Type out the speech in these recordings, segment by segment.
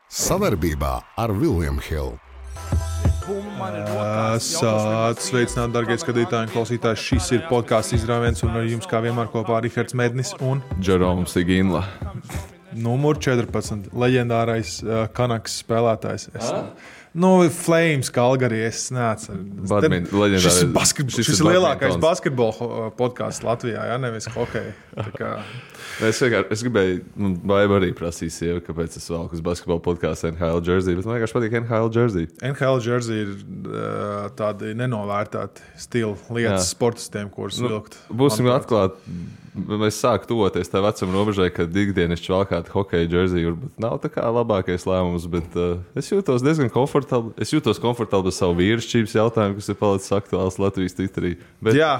Sadarbībā ar William Hill. Sveicināt, darbie skatītāji un klausītāji. Šis ir podkāsts izrāviens, un ar jums kā vienmēr kopā Rihards Mednis un Džeroms Iginla. Numur 14. Leģendārais Kanaks spēlētājs. Flames Calgary, es neatceru. Šis ir lielākais basketbola podkāsts Latvijā, ja nevis hokeja. Es gribēju, Baiba arī prasīja sievi, kāpēc es velku uz basketbola podkāstu NHL jersey, bet man vienkārši patīk NHL jersey. NHL jersey ir tādi nenovērtēti stila lietas sportistiem, kurus vilkt. Būsim atklāti, mēs sāku tuvoties tā vecuma robežai, kad ikdienišķi valkāt hokeja jersey, varbūt nav tā kā labākais lēmums, bet es jūtos diezgan komfortabli. Es jūtos komfortabli ar savu vīrišķības jautājumu, kas ir palicis aktuāls Latvijas Twitterī. Bet... Jā,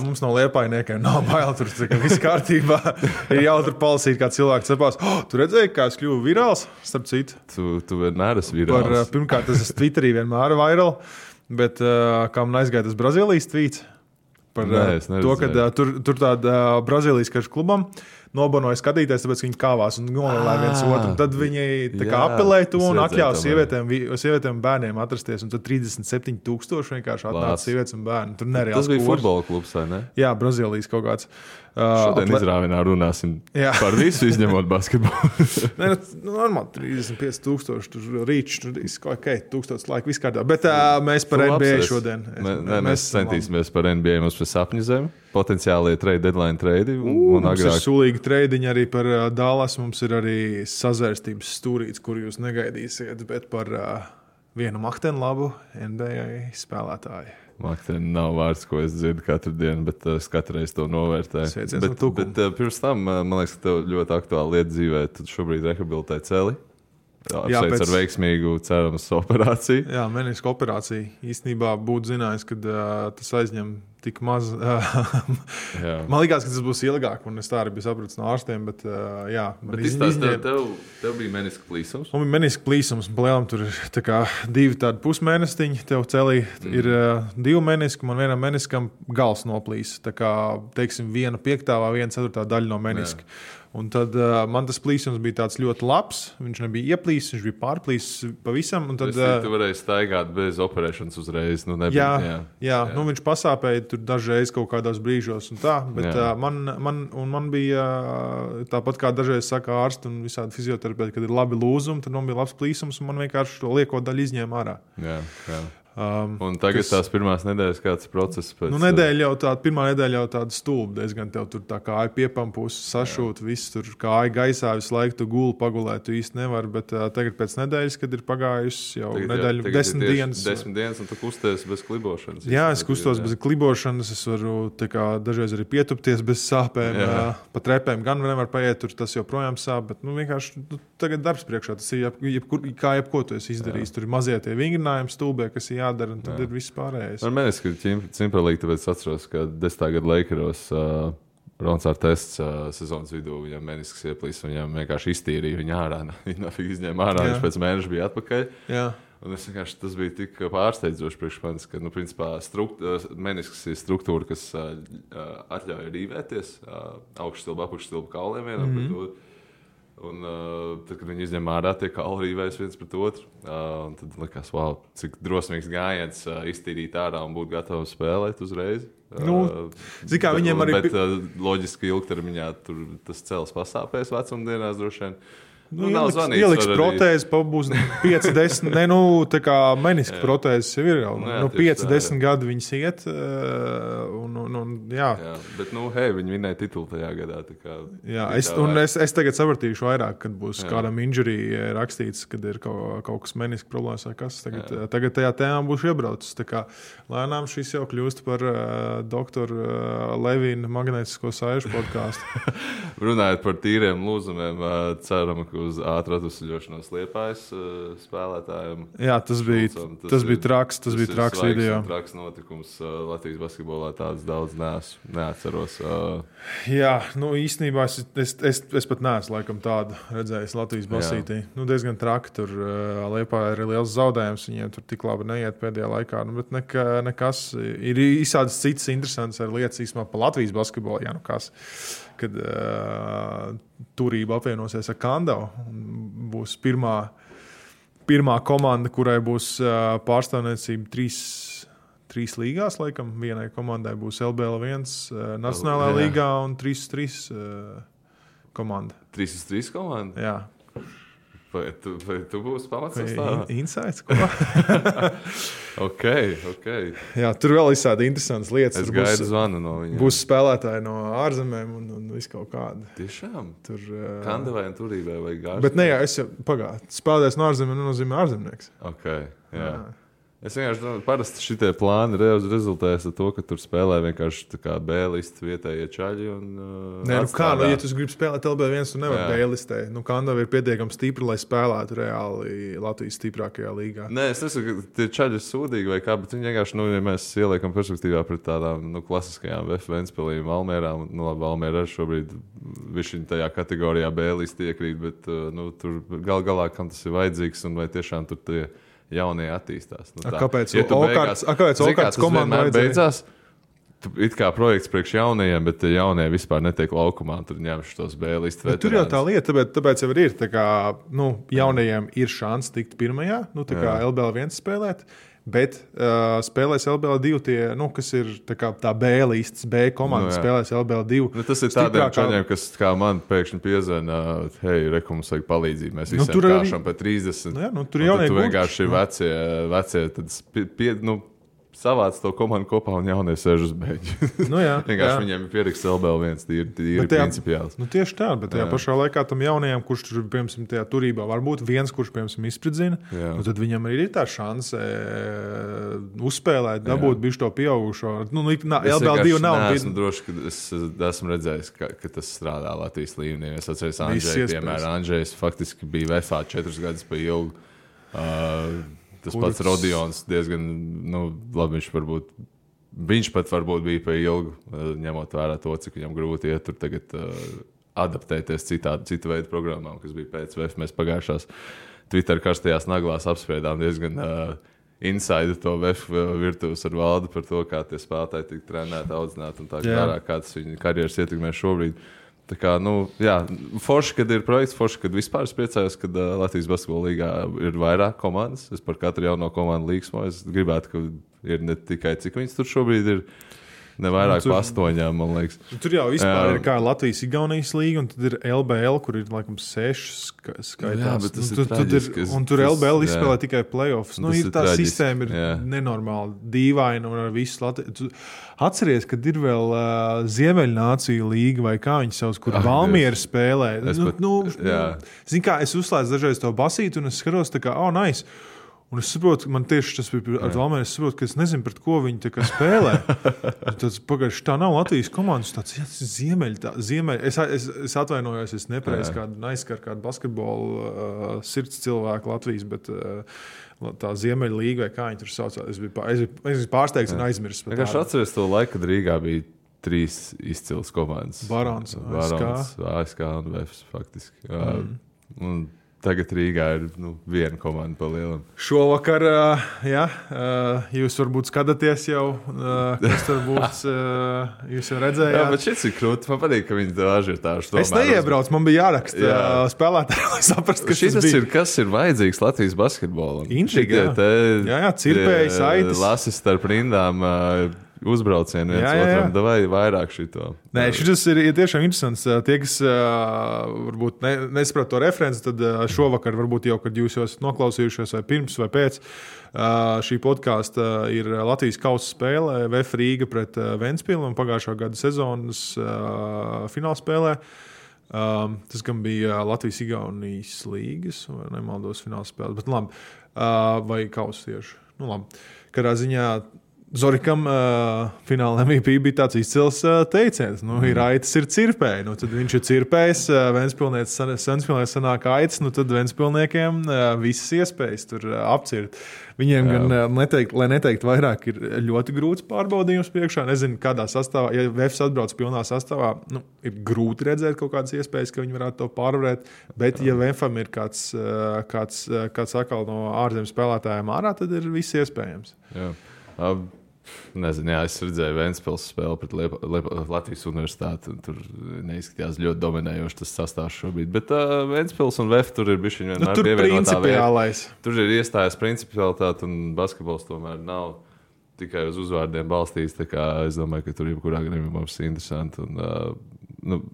mums no liepainiekiem nav bail, tur viss kārtībā. Ir jautri palasīt, kā cilvēks cepās. Tu redzēji, kā es kļuvu virāls? Starp citu. Tu vienmēr esi virāls. Pirmkārt, es esmu Twitterī vienmēr viral, bet kā man aizgāja tas Brazīlijas tweets par to, ka tur tāda Brazīlijas karš klubam nobanoja skatīties, tāpēc viņi kāvās un novēlēja viens otru. Tad viņi apelēja to un atļāva sievietēm un bērniem atrasties. Un tad 37,000 vienkārši atnāca sievietes un bērni. Tur nereāls tas bija futbola klubs, vai ne? Jā, Brazīlijas kaut kāds. Šodien izrāvienā runāsim par visu, izņemot basketbolu. Normāli 35,000, tur rīčs, tur okay, 1000 laika, viss kārtā. Bet mēs par NBA šodien. Mēs centīsimies par NBA, mums par sapņu zemi. Potenciālie deadline trade. Mums ir sulīgi treidiņi arī par Dallas. Mums ir arī sazvērstības stūrīts, kur jūs negaidīsiet, bet par vienu makteni labu NBA spēlētāju. Makteni nav vārds, ko es dzirdu katru dienu, bet es katru reizi to novērtēju. Bet pirms tam, man liekas, ka tev ļoti aktuāla lieta dzīvē. Tu šobrīd rehabilitē celi. Apsveic ar veiksmīgu, cerams, operāciju. Jā, meniska operācija. Īstenībā būtu zinājis, ka tas aizņem tik maz. Man likās, ka tas būs ilgāk, un es tā arī biju sapratis no ārstiem, bet jā. Tev bija meniska plīsums? Man bija meniska plīsums, un palielam tur ir tā kā 2 tādi pusmēnestiņi. Tev celī ir 2 meniski, man vienam meniskam gals noplīs. Tā kā, teiksim, 1/5 vai 1/4 daļa no meniska. Jā. Un tad man tas plīsums bija tāds ļoti labs. Viņš nebija ieplīsis, viņš bija pārplīsis pavisam. Tad, tu varēji staigāt bez operēšanas uzreiz. Jā. Nu, viņš pasāpēja tur dažreiz kaut kādos brīžos. Bet man bija tāpat kā dažreiz saka ārsti un visādi fizioterapeiti, kad ir labi lūzumi, tad man bija labs plīsums un man vienkārši to lieko daļu izņēma ārā. Jā. Un tagad tās pirmās nedēļas kāds process pēc... Pirmā nedēļa jau tāda stulba diezgan. Tev tur tā kāja piepampūs, sašūt, viss tur kāja gaisā, visu laiku tu guli pagulēt, tu īsti nevari, bet tagad pēc nedēļas, kad ir pagājusi jau nedēļu, 10 dienas. 10 dienas un tu kusties bez klibošanas. Jā, es kustos bez klibošanas, es varu dažreiz arī pietupties bez sāpēm, pa trepēm gan nevar paiet, tur tas joprojām sāp, bet vienkārši tagad darbs priekšā, tas ir kā jebko tu esi izdarījis. Tur ir mazie tie vingrinājumi stulbē, kas ir jādara, un tad ir viss pārējais. Ar meniski cimpralīgi, tāpēc atceros, ka 10. gada Lakeros Rons Artests sezonas vidū viņam menisks ieplīs, viņam vienkārši iztīrīja viņu ārā. Viņa izņēma ārā, viņš pēc mēneša bija atpakaļ. Jā. Un es vienkārši, tas bija tik pārsteidzoši priekš manis, ka, principā, menisks ir struktūra, kas atļauj rīvēties augšstilba, apakšstilba kauliem vienam pret otru. Un tad, kad viņi izņem ārā, tie kauli rīvējas viens pret otru. Tad likās, wow, cik drosmīgs gājiens iztīrīt ārā un būt gatavam spēlēt uzreiz. Viņiem arī... Bet loģiski ilgtermiņā tas cels pasāpēs vecumdienās droši vien. Ieliks protēzi, būs 5-10, tā kā meniska protēzes jau ir jau. 5-10 gadi viņas iet. Jā, bet viņi vinēja titulu tajā gadā. Es tagad sapratīšu vairāk, kad būs kādam injury rakstīts, kad ir kaut kas meniska problēmas vai kas. Tagad tajā tēmā būšu iebraucis. Lēnām šis jau kļūst par doktoru Levīna magnētisko saišu podkāstu. Runājot par tīriem lūzumiem, ceram, ka uz ātru atvesļošanos Liepājas spēlētājiem. Jā, tas bija traks video. Traks notikums Latvijas basketbolā, tāds daudz neatceros. Jā, īstenībā es pat neesmu laikam tādu redzējis Latvijas basītī. Diezgan traki tur Liepājā ir liels zaudējums, viņiem tur tik labi neiet pēdējā laikā, bet nekas. Ir visādas citas interesantas lietas īstenībā pa Latvijas basketbolu, kad turība apvienosies ar Kandavu. būs pirmā komanda, kurai būs pārstāvniecība trīs līgās, laikam. Vienai komandai būs LBL1 Nacionālajā līgā un 3-3 komanda. 3-3 komanda? Jā. Vai tu būsi pamatsastāvā? Insights, ko? Ok. Jā, tur vēl izsādi interesantas lietas. Es gaidu zvanu no viņiem. Būs spēlētāji no ārzemēm un viss kaut kāda. Tiešām? Tur, Kandavai un Turībai vai gāžu? Bet ne, jā, es jau spēlētājs no ārzemēm nenozīmē ārzemnieks. Ok, jā. Es vienkārši domāju, parasti šitie plāni rezultējas ar to, ka tur spēlē vienkārši tā kā B-listi vietējie čaļi. Nē, ja tu gribi spēlēt LB1, tu nevari B-listē. Kandava ir pietiekami stipra, lai spēlētu reāli Latvijas stiprākajā līgā. Nē, es nesaku, ka tie čaļi ir sūdīgi vai kā, bet viņi vienkārši, ja mēs ieliekam perspektīvā pret tādām klasiskajām Ventspilī, Valmierām, Valmiera arī šobrīd viņš tajā kategorijā B-listi iekrīt, bet tur galā, kam tas ir vajadzīgs un vai tiešām tur tie jaunie attīstās. Kāpēc Okārts komanda beidzās? It kā projekts priekš jaunajiem, bet jaunie vispār netiek laukumā. Tur ņemšu tos B-listu veterānus. Tur jau tā lieta, tāpēc jau ir. Tā kā, jaunajiem ir šāns tikt pirmajā, kā LBL1 spēlēt. Bet spēlēs LBL2, kas ir tā B-listas, B komanda spēlēs LBL2. Tas ir tādiem čaļiem, kas kā man pēkšņi piezvana, hei, mums vajag palīdzību, mēs visiem kāšam pa 30. Tur jaunie tu vienkārši vecie tad savāc to komandu kopā un jaunie sēž uz beigļu. Vienkārši viņiem ir pieraksts LBL1, ir principiāls. Tieši tā, bet tajā pašā laikā tam jaunajam, kurš tur, piemēram, tajā turībā varbūt viens, kurš, piemēram, izspridzina, tad viņam arī ir tā šanse uzspēlēt, dabūt bišķi to pieaugušo. LBL2 nav. Es esmu droši, ka es esmu redzējis, ka tas strādā Latvijas līmenī. Es atceros Andžeju, piemēram, Andžejs faktiski bija VFA 4 gadus pa ilgu. Tas pats Rodions diezgan, labi, viņš pat varbūt bija pa ilgu, ņemot vērā to, cik viņam grūti iet tur tagad adaptēties citu veidu programmām, kas bija pēc VF. Mēs pagājušās Twitter karstajās naglās apspriedām diezgan inside to VF virtuves ar Valdu par to, kā tie spēlētāji tika trenēti, audzināti un tā kā kā tas viņa karjeras ietekmē šobrīd. Tā kā, forši, kad ir projekts, forši, kad vispār es priecājos, kad Latvijas basketbola līgā ir vairāk komandas. Es par katru jauno komandu līgsmoju. Es gribētu, ka ir ne tikai cik viņas tur šobrīd ir, ne vairāk pa 8, man liekas. Tur jau vispār ir kā Latvijas-Igaunijas līga, un tad ir LBL, kur ir, laikam, 6 skaitās. Jā, bet tas ir traģiski. Un tur LBL izspēlē tikai playoffs. Ir tā sistēma ir nenormāli dīvaina un ar visu Latviju. Atceries, kad ir vēl Ziemeļnāciju līga vai kā viņi savus, kur Valmiera spēlē. Zini kā, es uzslēdzu dažreiz to basītu un es skatos tā kā, nice. Un es saprotu, man tieši tas bija ar Valmieru, es saprotu, ka es nezinu, pret ko viņi tā kā spēlē. Tas pagājuši, tā nav Latvijas komandas, tāds Ziemeļ. Es atvainojos, es nepareizi aizskaru kādu basketbolu sirds cilvēku Latvijas, bet tā Ziemeļa līga vai kā viņi tur sauc. Es biju pārsteigts un aizmirsis. Es atceros to laiku, kad Rīgā bija 3 izcils komandas. Barons, ASK un VFS faktiski. Un tagad Rīgā ir viena komanda pa lielam. Šovakar, jūs varbūt skatāties jau, kas tur būs, jūs jau redzējāt. Jā, bet šis ir krūti. Man patīk, ka viņi tā ažiotāžu tomēr. Es neiebraucu, man bija jāraksta spēlētāji, lai saprastu, kas tas bija. Kas ir vajadzīgs Latvijas basketbolam? Intriga, jā, cirpēji, saites. Lasis starp rindām, uzbraucienu viens otram, davai vairāk šito. Nē, šis ir tiešām interesants. Tie, kas varbūt nesaprot to referenci, tad šovakar varbūt jau, kad jūs jau esat noklausījušies vai pirms vai pēc šī podkāsta ir Latvijas kausa spēle VF Rīga pret Ventspilu un pagājušā gada sezonas finālspēlē. Tas gan bija Latvijas-Igaunijas līgas, vai nemaldos finālspēle, bet labi. Vai kausa tieši. Labi. Kādā ziņā Zorikam fināla MVP bija tāds izcils teiciens. Ir aitas, ir cirpēji. Tad viņš ir cirpējis, Ventspilnieks sanāk aitas, tad Ventspilniekiem visas iespējas tur apcirt. Viņiem gan, lai neteikt vairāk, ir ļoti grūts pārbaudījums priekšā. Nezinu, kādā sastāvā, ja VFS atbrauc pilnā sastāvā, ir grūti redzēt kaut kādas iespējas, ka viņi varētu to pārvarēt. Bet, ja VFM ir kāds atkal no ārzemju spēlētājiem ārā, tad ir viss iespējams. Jā. Nezinu, jā, es redzēju Ventspils spēli pret Latvijas universitāti. Tur neizskatījās ļoti dominējoši tas sastāvs šobrīd. Bet Ventspils un VF tur ir bišķiņ vienmēr pievienotā vērtība. Tur ir iestājas principialitāte un basketbols tomēr nav tikai uz uzvārdiem balstīts. Es domāju, ka tur jebkurā gadījumā mums ir interesanti.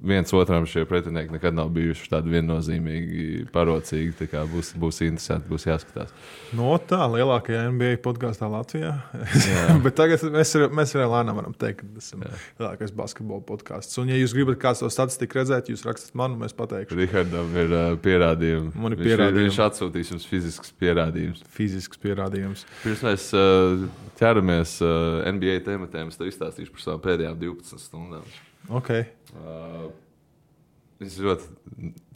Viens otram šie pretinieki nekad nav bijuši tādi viennozīmīgi parocīgi. Būs interesanti, būs jāskatās. Tā lielākajā NBA podkāstā Latvijā. Bet tagad mēs arī lēnām varam teikt, ka tas ir lielākais basketbola podkāsts. Un, ja jūs gribat kāds to statistiku redzēt, jūs rakstat man, un mēs pateikšu. Rihardam ir pierādījumi. Man ir pierādījumi. Viņš atsūtīs jums fizisks pierādījums. Pirms mēs ķeramies NBA tematēm, es tev izstāstīšu par savām pēdējām 12 stundām. Okay. Viņš ir ļoti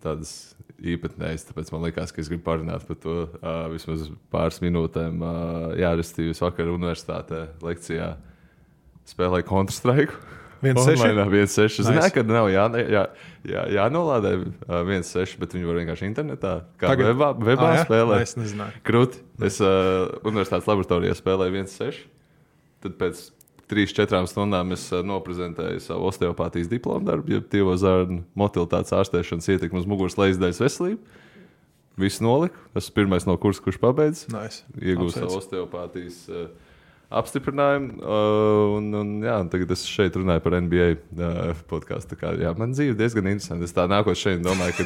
tādas īpatnējas, tāpēc man liekas, ka es gribu parunāt par to vismaz pāris minūtēm. Restīvi vakar universitātē lekcijā spēlēju Counter-Strike. 1.6. Zināju, ka nav jānolādē 1.6, bet viņi var vienkārši internetā, kā webā spēlēt. Es nezināju. Krūti. Es universitātes laboratorijā spēlēju 1.6, tad pēc 3-4 stundām es noprezentēju savu osteopātijas diplomu darbu, jeb tievo zarnu motilitātes ārstēšanas ietekmi uz muguras lejasdaļas veselību. Visu noliku. Esmu pirmais no kursa, kurš pabeidz. Nice. Iegūstu savu osteopātijas apstiprinājumu. Tagad es šeit runāju par NBA podkāstu. Man dzīve diezgan interesanti. Es tā nākot šeit domāju,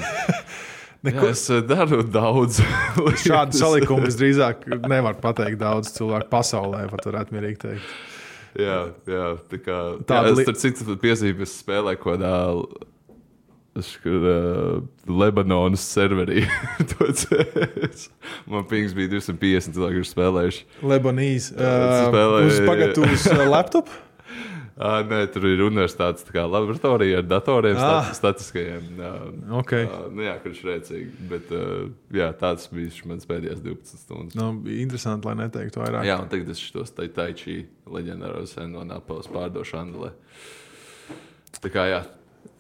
ka es daru daudz. Šādu salikumu visdrīzāk nevar pateikt daudz cilvēku pasaulē, pat varētu mierīgi teikt. Jā, es tur citu piezīmi, es spēlēju kodā Lebanonas serverī. Man pings bija 250 cilvēki, kurš spēlējuši. Lebanīs. Uz laptop? Nē, tur ir universitātes laboratorija ar datoriem, statiskajiem. Kurš rēcīgi. Bet tāds bija mans pēdējās 12 stundas. Interesanti, lai neteiktu vairāk. Jā, un tagad es šitos taičī leģendāros no Napoles pārdošu Andelē.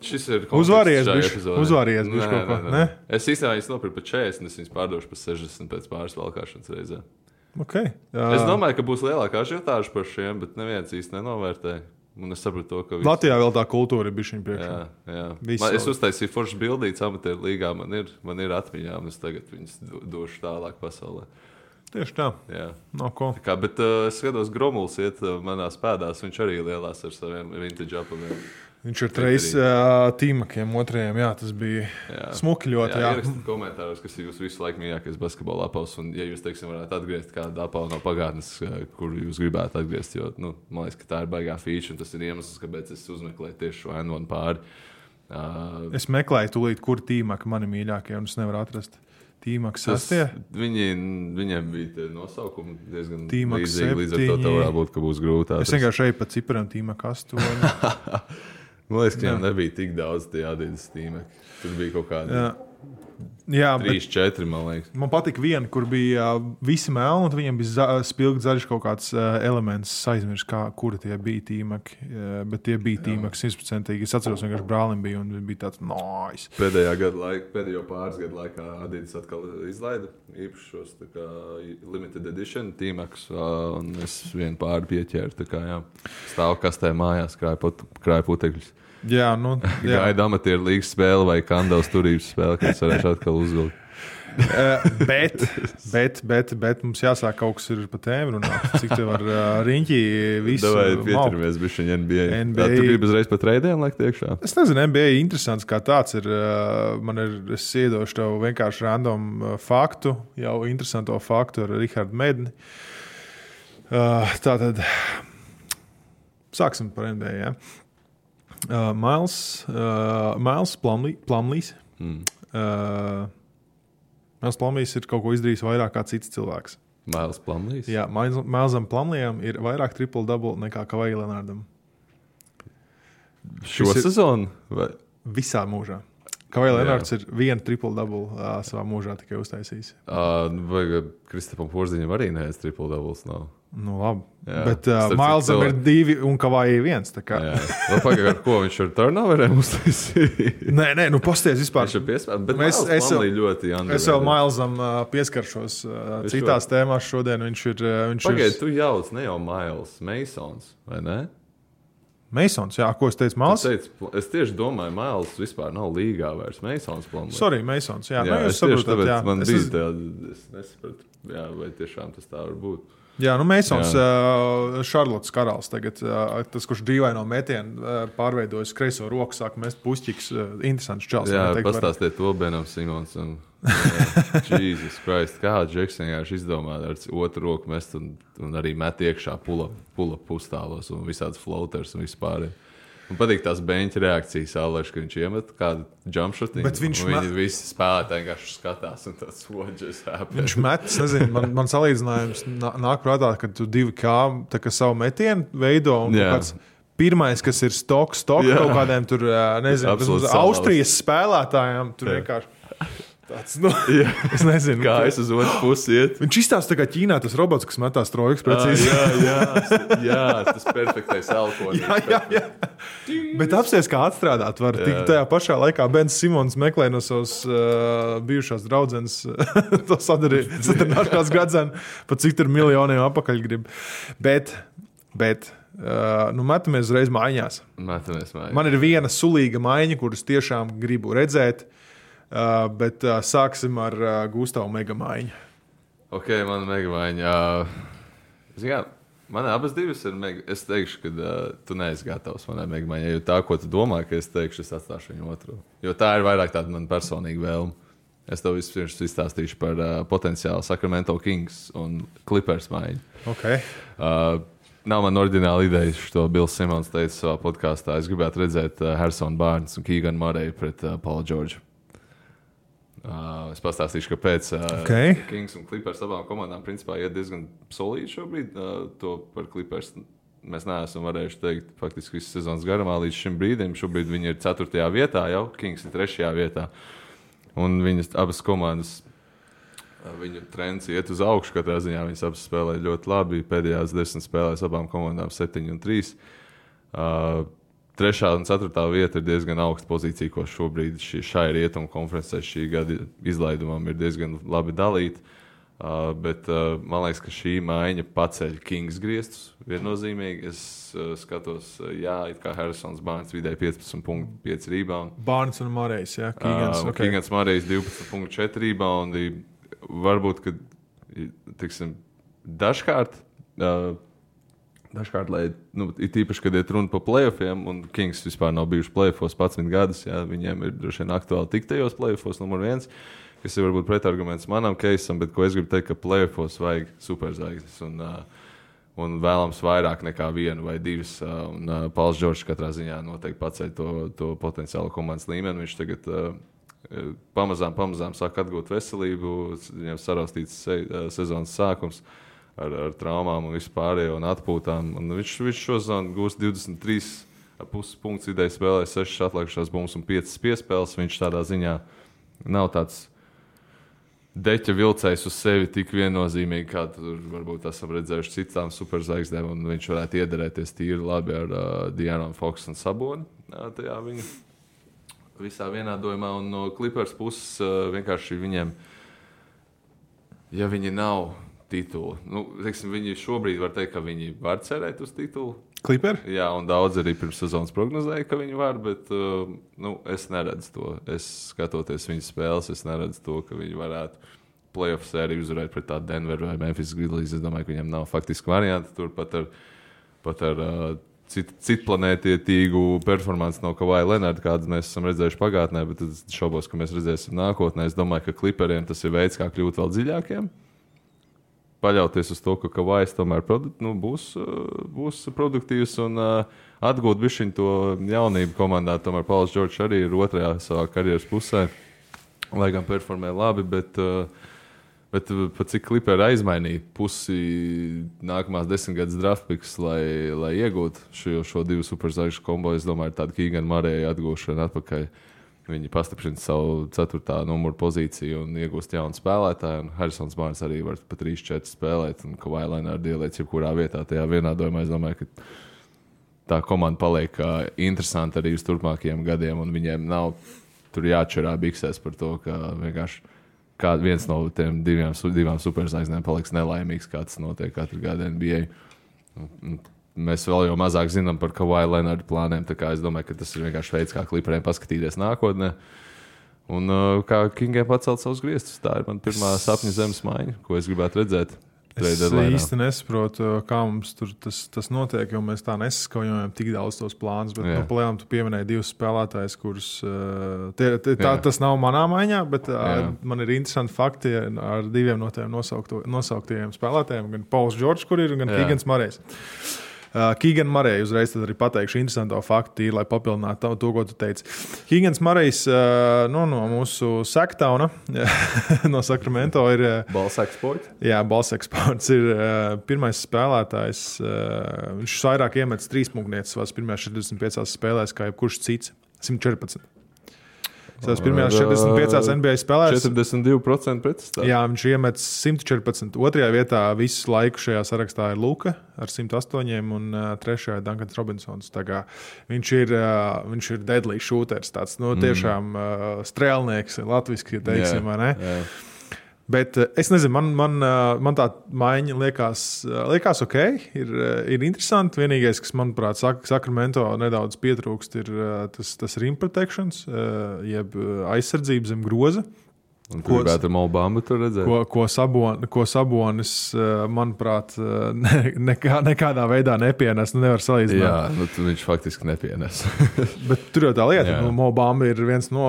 Šis ir uzvāries bišķi kaut ko, ne? Es īstenībā viņas nopirku par 40, es viņas pārdošu par 60 pēc pāris valkāšanas reizē. Okay. Es domāju, ka būs lielākā ažiotāža par šiem, bet neviens īsti nenovērtē. Un es sapratu to, ka Latvijā vēl tā kultūra ir bišķiņ priekšā. Jā. Es uztaisīju foršas bildītas amatieru līgā, man ir atmiņā, un es tagad viņas došu tālāk pasaulē. Tieši tā. Jā. Bet es skatos, Gromuls iet manās pēdās, viņš arī lielās ar saviem vintage apaviem. Viņš ir treis tīmakiem otrajiem, tas bija smuki ļoti. Ierakstiet komentāros, kas ir jūsu visu laiku mīļākais basketbola apavs, un ja jūs, varētu atgriezt kādu apavu no pagātnes, kuru jūs gribētu atgriezt, jo, man liekas, ka tā ir baigā feature, un tas ir iemesls, kāpēc es uzmeklēju tieši šo N1 pāri. Es meklēju tūlīt, kur tīmaki mani mīļākie, un es nevaru atrast. Tīmaks 6. Viņiem bija tie nosaukumi diezgan Tīmaks līdzīgi, līdz ar to tā varētu būt, ka būs grūti atrast. Es vienkārši eju pa ciparam Tīmaka 8. Man liekas, ka viņam nebija tik daudz tie Adidas tīmeki. Tur bija kaut kādi 3-4, man liekas. Man patika viena, kur bija visi melni, un viņiem bija spilgti zaļš kaut kāds elements. Es aizmirsu, kuri tie bija tīmeki. Bet tie bija tīmeki 100%. Es atceros, vienkārši brālim bija, un bija tāds nice. Pēdējo pāris gadu laikā Adidas atkal izlaida īpašos limited edition tīmekus, un es vienu pāri pieķēru. Stāvu kastē mājās, krāju putekļus. Gaida amatieru līgas spēle vai kandavas turības spēle, kas varēšu atkal uzvilkt. Bet mums jāsāk kaut kas ir pa tēmu runāt. Cik tev var riņķi visu? Davai pieturamies bišķiņ NBA. Tu gribi uzreiz pa treidiem liekt iekšā? Es nezinu, NBA interesants kā tāds ir. Es iedošu tev vienkārši random faktu, jau interesanto faktu ar Rihardu Medni. Tātad sāksim par NBA, ja? Miles Plumlees. Miles Plumlees ir kaut ko izdarījis vairāk kā cits cilvēks. Miles Plumlees? Jā, Milesam Plumleesam ir vairāk triple-double nekā Kawhi Leonardam. Šo sezonu? Visā mūžā. Kawhi Leonards ir vienu triple-double savā mūžā tikai uztaisījis. Vai Kristapam Porziņam arī neviens triple-doubles nav? Nu, labi. Jā. Bet Milesam ir 2 un Kawhi 1. Vēl pagaidām, ar ko viņš ar turnoveriem uztaisīja? Nē, nu pasties vispār. Viņš ir piespēlēts, bet es ļoti underrated. Es vēl Milesam pieskaršos citās tēmās šodien. Viņš ir... Pagaid, tu jauc, ne jau Miles, Masons, vai ne? Masons, jā, ko es teicu, Miles? Es tieši domāju, Miles vispār nav līgā vairs. Masons plāno. Sorry, Masons, jā. Es tieši tāpēc man bija tāda, es nesapratu, jā, vai tiešām tas tā var būt. Jā, nu Masons, Šarlotas karalis tagad, tas, kurš dīvaino metienu pārveidojas kreiso roku, sāk mest pušķiks, interesants čels. Jā, pastāstiet to Benam Simonsam. Jesus Christ, kā Džeks vienkārši izdomā ar otru roku mest un arī met iekšā pula pustālos un visādas floaters un vispār. Man patīk tās beņķa reakcijas, Aleš, ka viņš iemet kādu jumpshotinu. Viņi visi spēlētāji vienkārši skatās un tāds what happened. Viņš met, es nezinu, man salīdzinājums nāk prātā, ka tu 2K tā kā savu metienu veido un kāds pirmais, kas ir stok kaut kādiem tur, nezinu, Austrijas spēlētājiem, tur vienkārši tāds, nu, es nezinu. Kā es uz otru pusi iet. Viņš izstāsta tā kā Ķīnā tas robots, kas metās trojkas precīzi. Jā, tas perfektais alkoholis. Jā. Bet apsies, kā atstrādāt var. Tik tajā pašā laikā Bens Simons meklē no savas bijušās draudzenes to sadarināšanās gradzenu, pa cik tur miljoniem apakaļ grib. Bet nu, metamies uzreiz maiņās. Man ir viena sulīga maiņa, kuras tiešām gribu redzēt. Bet sāksim ar Gustavu megamaiņu. Ok, mana megamaiņa. Man abas divas ir es teikšu, ka tu neesi gatavs manai megamaiņai, jo tā, ko tu domā, ka es teikšu, es atstāšu viņu otru. Jo tā ir vairāk tāda man personīga vēlme. Es tev vispirms izstāstīšu par potenciālu Sacramento Kings un Clippers maiņu. Okay. Nav man oriģināla ideja, šo Bills Simons teica savā podkāstā. Es gribētu redzēt Harrison Barnes un Keegan Murray pret Paulu George. Es pastāstīšu, kāpēc Kings un Clippers abām komandām principā iet diezgan solīdi šobrīd. To par Clippers mēs neesam varējuši teikt faktiski visas sezonas garumā līdz šim brīdim. Šobrīd viņi ir 4. vietā jau, Kings ir 3. vietā. Un viņas abas komandas, viņu trends iet uz augšu katrā ziņā. Viņas abas spēlē ļoti labi. Pēdējās 10 spēlēs abām komandām 7 un 3. 3. un 4. vieta ir diezgan augsta pozīcija, ko šobrīd šai rietumu konferencē šī gada izlaidumam ir diezgan labi dalīta. Bet man liekas, ka šī maiņa paceļ Kings griestus viennozīmīgi. Es skatos, it kā Harrisons Barnes vidēji 15.5 rebound. Barnes un Murray's, jā. Keegans Murray's 12.4 reboundi. Varbūt, ka, tiksim, dažkārt, lai, ir tīpaši, kad iet runa par playoffiem, un Kings vispār nav bijuši playoffos 11 gadus, viņiem ir droši vien aktuāli tikt tajos playoffos numur 1, kas ir varbūt pretarguments manam keisam, bet ko es gribu teikt, ka playoffos vajag superzvaigznes, un vēlams vairāk nekā 1 vai 2, un Pauls Džordžs katrā ziņā noteikti paceļ to potenciālo komandas līmeni. Viņš tagad pamazām sāk atgūt veselību, viņam saraustīts sezonas sākums, ar traumām un vispārējo un atpūtām. Un viņš šo sezonu gūst 23,5 punktus vidēji spēlē, 6 atlikušās bumbas un 5 piespēles. Viņš tādā ziņā nav tāds deķa vilcējs uz sevi tik viennozīmīgi, kā tur varbūt esam redzējuši citām superzvaigznēm, un viņš varētu iederēties tīri labi ar De'Aaron Foxu un Saboni. Tajā viņa visā vienādojumā, un no Clippers puses vienkārši viņiem, ja viņi nav titulu. Teiksim, viņi šobrīd var teikt, ka viņi var cerēt uz titulu. Clipper? Jā, un daudz arī pirms sezonas prognozēja, ka viņi var, bet es neredzu to. Es skatoties viņas spēles, es neredzu to, ka viņi varētu playoff sēriju uzvarēt pret tādu Denver vai Memphis Grizzlies. Es domāju, ka viņiem nav faktiski varianti. Tur pat ar citplanētietīgu performanci no Kawhi Leonarda, kādas mēs esam redzējuši pagātnē, bet es šaubos, ka mēs redzēsim nākotnē. Es domāju, ka Clipperiem tas ir veids, kā kļūt vēl dziļākiem. Paļauties uz to, ka Kawhis tomēr būs produktīvs un atgūt bišķiņ to jaunību komandā. Tomēr Pauls Džordžs arī ir 2. savā karjeras pusē, lai gan performē labi, bet pat cik Clipperi aizmainīja pusi nākamās 10 gadus draft picks, lai iegūtu šo 2 superzvaigžņu kombo, es domāju, tāda Keegan Murray atgūšana atpakaļ viņi pastiprina savu 4. numuru pozīciju un iegūst jaunu spēlētāju. Harrisons Barnes arī var pa 3-4 spēlēt, un Kawhi Leonard ieliec jebkurā vietā tajā vienādojumā. Es domāju, ka tā komanda paliek interesanta arī uz turpmākajiem gadiem, un viņiem nav tur jāčerā biksēs par to, ka vienkārši viens no tiem divām superzvaigznēm paliks nelaimīgs, kā tas notiek katru gadu NBA. Mēs vēl jau mazāk zinām par Kawhi Leonard plāniem, tā kā es domāju, ka tas ir vienkārši veids, kā Clipperiem paskatīties nākotnē. Un kā Kingiem pacelt savus griestus. Tā ir man pirmā sapņu zemes maiņa, ko es gribētu redzēt. Es īsti nesaprotu, kā mums tur tas notiek, jo mēs tā nesaskaujam tik daudz tos plānus. Bet palielam tu pieminēji 2 spēlētājus, kurus tas nav manā maiņā, bet man ir interesanti fakti ar 2 no tiem nosauktajiem spēlētājiem, gan Pauls Džordžs, kur ir, gan Keegans Murrejs. Keegan Murray, uzreiz tad arī pateikšu interesantu faktu, lai papildinātu to, ko tu teici. Keegans Murrejs no mūsu Sacktauna, no Sacramento ir... Balls Export? Jā, Balls Export ir pirmais spēlētājs. Viņš vairāk iemetis 3 punktnieces savās pirmajās 45 spēlēs, kā jebkurš cits. 114. Savas pirmajās 45 NBA spēlēs 42% pretestāv. Jā, viņš iemetis 114. Otrajā vietā visu laiku šajā sarakstā ir Luka ar 108 un trešajā Duncans Robinsons. Viņš ir deadly shooters, tāds tiešām strēlnieks, latviski teiksim, vai ne? Jā. Bet es nezinu, man tā maiņa liekas ok, ir interesanti. Vienīgais, kas, manuprāt, Sacramento nedaudz pietrūkst, ir tas rim protections, jeb aizsardzība zem groza. Un ko gribētu ar Mo Bambu tur redzēt? Ko Sabonis, manuprāt, nekādā veidā nepienes. Nevar salīdzināt. Jā, viņš faktiski nepienes. Bet tur jau tā lieta. Mo Bamba ir viens no...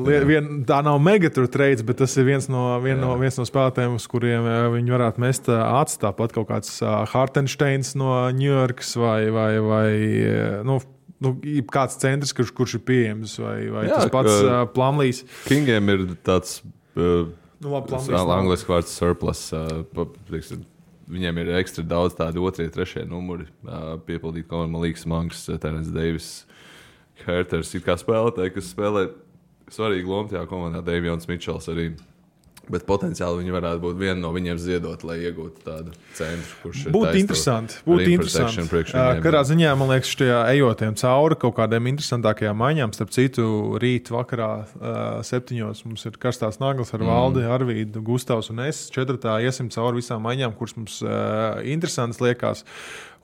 tā nav megatur trades, bet tas ir viens no spēlētājiem, uz kuriem viņi varētu mest acis. Tāpat kaut kāds Hartensteins no New Yorkas vai kāds centrs, kurš ir pieejams, vai tas pats Plumlees. Kingiem ir tāds angliski vārds surplus. Viņiem ir ekstra daudz tādu 2., 3. numuri piepildīt. Man liekas, Monks, Terence Davis, Herters, it kā spēlētāji, kas spēlē svarīgu lomu tajā komandā, Davions Mitchells arī. Bet potenciāli viņi varētu būt viena no viņiem ziedot, lai iegūtu tādu centru, kurš ir būtu interesanti. Katrā ziņā, man liekas, šajā ejotiem cauri kaut kādiem interesantākajām maiņām. Starp citu, rīt vakarā 7. mums ir karstās naglas ar Valdi, Arvīdu, Gustavs un es. 4. iesim cauri visām maiņām, kuras mums interesantas liekas.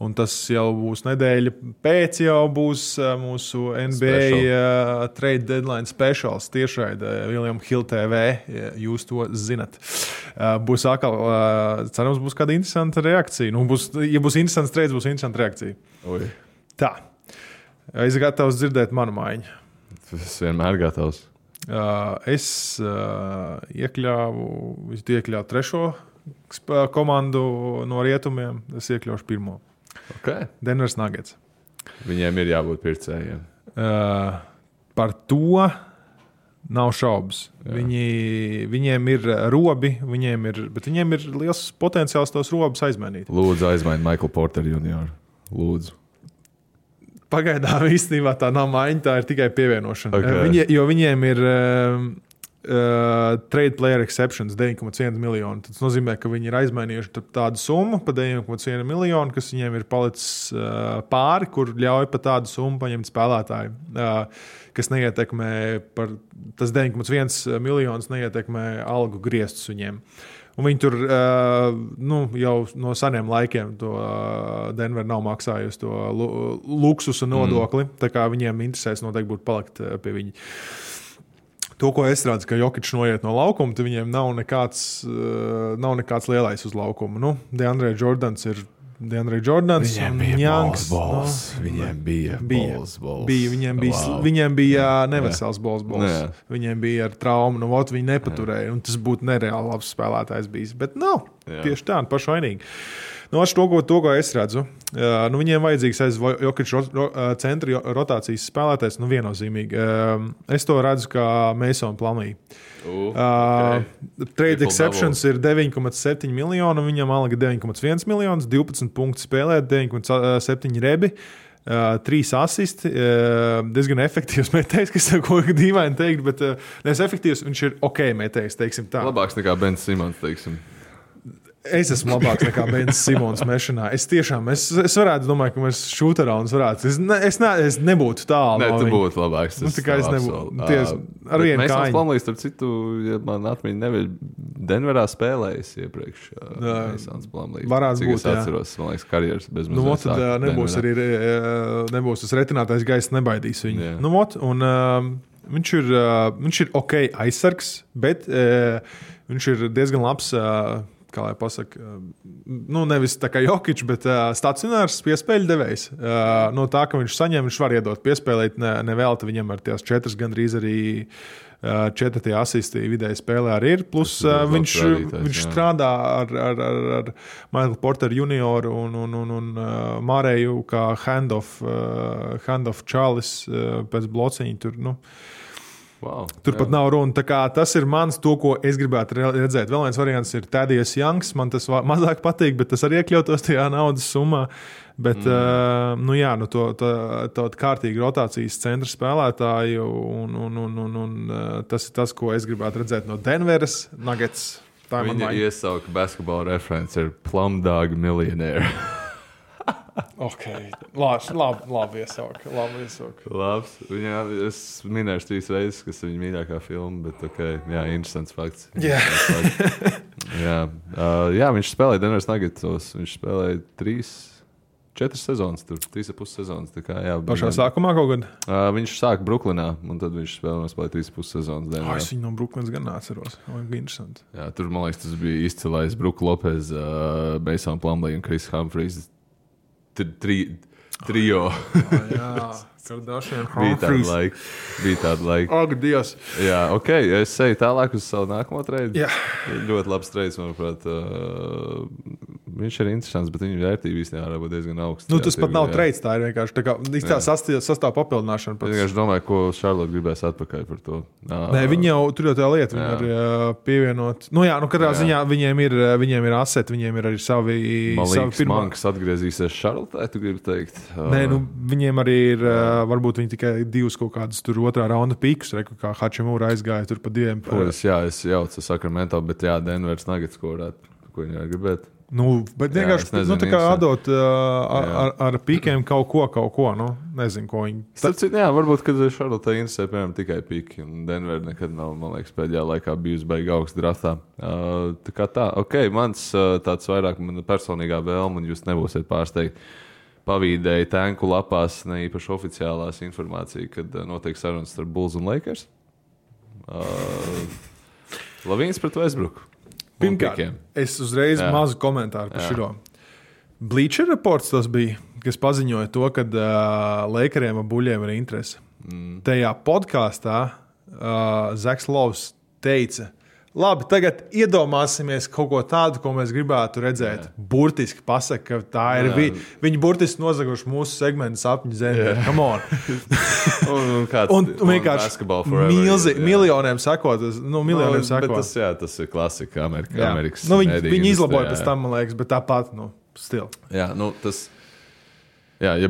Un tas jau būs nedēļa pēc, jau būs mūsu NBA trade deadline specials tiešraidē William Hill TV. Jūs to zinat. Būs atkal, cerams, būs kāda interesanta reakcija. Ja būs interesants trades, būs interesanta reakcija. Oi. Tā. Es gatavs dzirdēt manu maiņu. Es vienmēr gatavs. Es iekļāvu 3. komandu no rietumiem. Es iekļaušu 1. Okay. Denvers Nuggets. Viņiem ir jābūt pircējiem. Par to nav šaubas. Viņiem ir robi, bet viņiem ir liels potenciāls tos robus aizmainīt. Lūdzu, aizmaini Michael Porter Jr. Lūdzu. Pagaidām īstenībā tā nav maiņa, tā ir tikai pievienošana. Okay. Jo viņiem ir trade player exceptions 9,1 miljonu. Tas nozīmē, ka viņi ir aizmainījuši tādu summu pa 9,1 miljonu, kas viņiem ir palicis pāri, kur ļauj pa tādu summu paņemt spēlētāju, kas neietekmē par tas 9,1 miljonus neietekmē algu griestus viņiem. Un viņi tur jau no seniem laikiem to Denver nav maksājusi to luksusu nodokli, tā kā viņiem interesēs noteikti būtu palikt pie viņa. To, ko es redzu, ka Jokičs noiet no laukuma, tad viņiem nav nekāds lielais uz laukuma. DeAndre Jordans ir DeAndre Jordans. Viņiem bija balls. Viņiem bija balls. Viņiem bija nevesels balls. Viņiem bija ar traumu. Viņi nepaturēja. Un tas būtu nereāli labs spēlētājs bijis. Bet nav. Tieši tā, pašvainīgi. To, ko es redzu, viņiem vajadzīgs aiz Jokiča centra rotācijas spēlētājs, viennozīmīgi. Es to redzu kā Mason Plumlee. Trade exceptions ir 9,7 miljoni, viņam alga 9,1 miljonus, 12 punktu spēlēt, 9,7 rebi. 3 asisti, diezgan efektīvs metējs, kas ir ko dīvaini teikt, bet nevis efektīvs, viņš ir ok metējs, teiksim tā. Labāks nekā Bens Simons, teiksim. Es esmu labāks nekā Bens Simons mešanā. Es varētu, domāju, ka mēs šūterauns varētu. Es nebūtu tālu. Nē, tu būtu labāks. Tā kā es nebūtu. Ar vienu kāju. Mēs Plumlees, starp citu, ja man atmiņa neviļ, Denverā spēlējis iepriekš. Mēsons Plumlees. Varētu būt, es atceros, man liekas, karjeras bez mazliet. Nu, tad nebūs tas retinātais gaiss, nebaidīs viņu. Jā. Nu, un viņš ir ok aizsargs, bet viņš ir diezgan labs, kā lai pasaka, nevis tā kā Jokič, bet stacionārs piespēļu devējs. No tā, ka viņš saņem, viņš var iedot piespēlēt, nevēlta viņam ar tās 4 gandrīz arī 4 asisti vidēji spēlē arī ir. Plus viņš strādā ar Michael Porter junioru un Māreju kā handoff Charles pēc blociņa tur, Wow, Turpat nav runa. Tas ir mans, to, ko es gribētu redzēt. Vēl viens variants ir Tēdijas Janks. Man tas mazāk patīk, bet tas arī iekļautos tajā naudas summā. Bet, to kārtīgi rotācijas centra spēlētāju, un tas ir tas, ko es gribētu redzēt no Denveras Nuggets. Viņa iesauka basketbola referents ir Plumdog Millionaire. Ok, labi iesauka. Labs. Es minēšu 3 reizes, kas ir viņa mīļākā filma, bet interesants fakts. Jā, viņš spēlēja Denveras Nuggetsos. Viņš spēlēja 4 sezonas, 3,5 sezonas. Pašā sākumā kaut kad? Viņš sāka Bruklinā, un tad viņš spēlēja 3,5 sezonas Denverā. Es viņu no Bruklinas gan neatceros. Interesanti. Jā, tur, man liekas, tas bija izcilais Brook Lopez, Mason Plumlee un Chris Humphries. Trio. Jā, Kardashian bija tāda laika. Ak, Dievs. Jā, ok, es eju tālāk uz savu nākamo treidu. Jā. Ļoti labs treids, manuprāt. Viņš ir interesants, bet viņa vērtība īstenībā var būt diezgan augsta. Tas pat nav treids, tā ir vienkārši tā sastāv papildināšana. Es vienkārši domāju, ko Charlotte gribēs atpakaļ par to. Nē, viņi jau tur jau tā lieta, viņi var pievienot. Katrā ziņā viņiem ir aseti, viņiem ir arī savi Mankas atgriezīsies Charlotte, tu gribi teikt? Nē, viņiem arī ir, varbūt viņi tikai 2 kaut kādus tur otrā raunda pīkus, kā Hačimūra aizgāja tur pa 2. Es jaucu Sacramento, bet Denveras Nuggets, ko viņi var gribēt. Bet vienkārši tā kā atdot ar pīkiem kaut ko, nezinu, ko viņi. Varbūt, kad Charlotte interesē, piemēram, tikai pīki, un Denver nekad nav, man liekas, pēdējā laikā bijusi baigi augsts draftā. Mans tāds vairāk man personīgā vēlme, un jūs nebūsiet pārsteigti, pavīdēja tanku lapās, ne īpaši oficiālās informācija, kad notiek sarunas starp Bulls un Lakers. Lavīns pret Westbrooku. Pirmkārt, es uzreiz mazu komentāru par šo. Bleacher Reports tas bija, kas paziņoja to, ka Lakeriem un Buļļiem ir interese. Tajā podkāstā Zaks Lovs teica, labi, tagad iedomāsimies kaut ko tādu, ko mēs gribētu redzēt. Burtiski pasaka, ka tā ir viņi burtiski nozaguši mūsu segmentu sapņu zemē. Come on! un vienkārši miljoniem sakot. Bet tas ir klasika Amerikas. Viņi izlaboja pēc tam, man liekas, bet tāpat, stil. Ja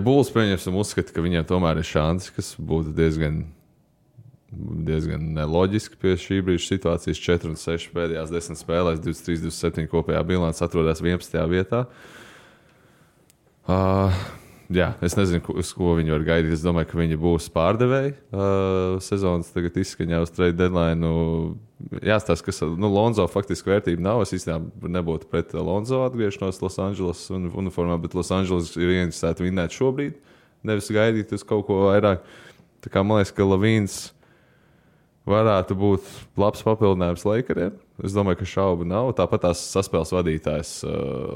Bulls pieņemsim uzskata, ka viņiem tomēr ir šansi, kas būtu diezgan neloģiski pie šī brīža situācijas. 4-6 pēdējās 10 spēlēs, 23-27 kopējā bilants atrodas 11. vietā. Es nezinu, uz ko viņi var gaidīt. Es domāju, ka viņi būs pārdevēji. Sezonas tagad izskaņā uz trade deadline. Jāstāsta, ka Lonzo faktiski vērtība nav. Es īstenībā nebūtu pret Lonzo atgriešanos Los Angeles uniformā, bet Los Angeles ir ieinteresēti vinnēt šobrīd, nevis gaidīt uz kaut ko vairāk. Tā kā man liekas, ka Lavīns varētu būt labs papildinājums Lakeriem. Es domāju, ka šaubu nav. Tāpat tās saspēles vadītājs,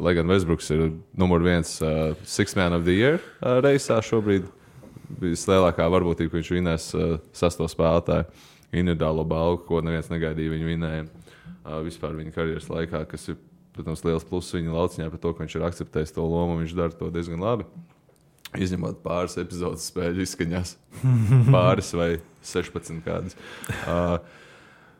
lai gan Westbrooks ir numur 1 Sixth Man of the Year reisā šobrīd. Vislielākā varbūtība, ka viņš vinēs 6. spēlētāju individuālo balvu, ko neviens negaidīja viņu vinējumu. Vispār viņa karjeras laikā, kas ir, protams, liels pluss viņa lauciņā par to, ka viņš ir akceptējis to lomu, viņš dara to diezgan labi. Izņemot pāris epizodes spēļu izskaņās. Pāris vai 16 kādas.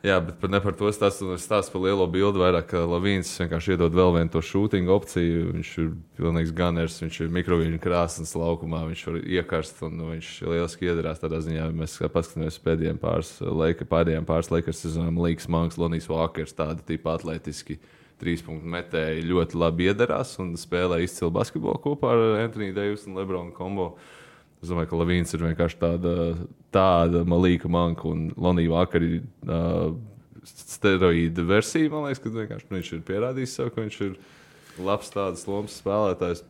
Jā, bet ne par to stāstu par lielo bildi. Vairāk Lavīns vienkārši iedod vēl vienu to shooting opciju. Viņš ir pilnīgs gunners, viņš ir mikroviļņu krāsnes laukumā, viņš var iekarst un viņš lieliski iedarās tādā ziņā. Mēs paskatāmies pēdējiem pāris Lakers sezonām. Līks Manks, Lonijs Walkers, tādi tipi atletiski 3-punktu metēji ļoti labi iedarās un spēlē izcilu basketbolu kopā ar Anthony Davis un LeBron kombo. Es domāju, ka Lavīns ir vienkārši tāda Malīka Manka un Lonija Vakari steroīda versija. Man liekas, ka vienkārši viņš ir pierādījis sev, ka viņš ir labs tādas lomas spēlētājs.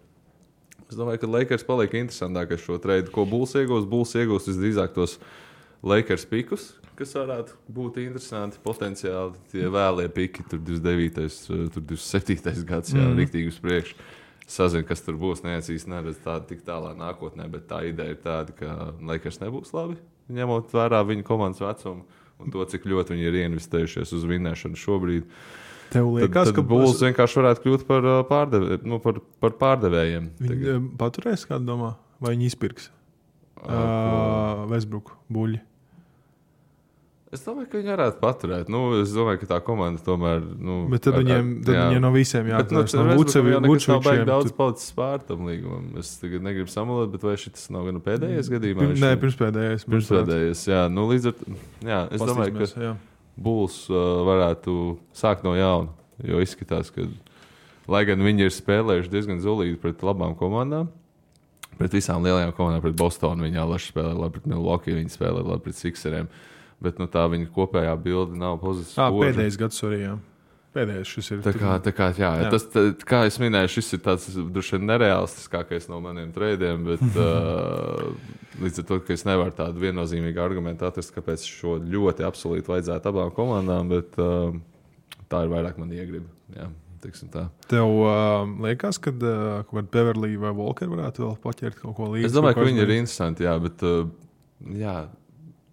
Es domāju, ka Lakers paliek interesantākais šo treidu. Ko Bulls iegūs? Bulls iegūs visdrīzāk tos Lakers pikus, kas varētu būt interesanti potenciāli. Tie vēlie piki, tur 29. tur 27. gads, jā, riktīgi uz priekšu. Sazinu, kas tur būs, neredz tādu tik tālā nākotnē, bet tā ideja ir tāda, ka Lakers nebūs labi, ņemot vērā viņu komandas vecumu un to, cik ļoti viņi ir ieinvestējušies uz vinnēšanu šobrīd. Tev liekas, ka Bulls vienkārši varētu kļūt par pārdevējiem. Viņi paturēs, kādu domā, vai viņi izpirks Westbrook buļļi? Es domāju, ka viņi varētu paturēt. Es domāju, ka tā komanda tomēr... bet tad viņiem no visiem jāatcerās. No Vučevičiem nav baigi daudz palicis pār tam līgumam. Es tagad negribu samalot, bet vai šis nav gan pēdējais gadījumā? Nē, pirmspēdējais. Pirmspēdējais, jā. Līdz ar... Jā, es domāju, ka Bulls varētu sākt no jauna, jo izskatās, ka, lai gan viņi ir spēlējuši diezgan zulīgi pret labām komandām, pret visām lielajām komandām, pret Bostonu viņi alaši spēlē labi, pret Milwaukee viņi spēlē labi, pret Sixeriem. Bet tā viņa kopējā bilde nav pozitīva. Pēdējais gads arī, jā. Pēdējais šis ir. Tā kā, jā. Tas, kā es minēju, šis ir tāds droši vien nereālistiskākais no maniem treidiem, bet līdz ar to, ka es nevaru tādu viennozīmīgu argumentu atrast, kāpēc šo ļoti absolūti vajadzētu abām komandām, bet tā ir vairāk man iegriba. Jā, teiksim tā. Tev liekas, kad Beverly vai Walker varētu vēl paķert kaut ko līdzi? Es domāju, ka viņi ir interesanti, jā, bet jā.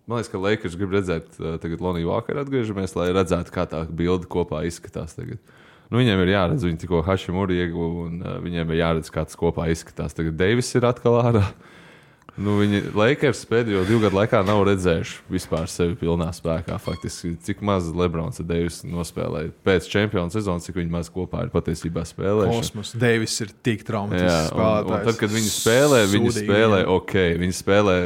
Man liekas, ka Lakers grib redzēt tagad Loniju Walkeru atgriežamies, lai redzētu, kā tā bilde kopā izskatās tagad. Viņiem ir jāredz, viņi tikko Hashimura ieguva, un viņiem ir jāredz, kā tas kopā izskatās. Tagad Davis ir atkal ārā. Viņi Lakers pēdējo 2 gadu laikā nav redzējuši vispār sevi pilnā spēkā. Faktiski, cik maz Lebrons un Davis nospēlēja pēc čempionu sezonas, cik viņi maz kopā ir patiesībā spēlējuši. Kosmos. Davis ir tik traumatisks spēlētājs. Un tad, kad viņi spēlē ok. Viņi spēlē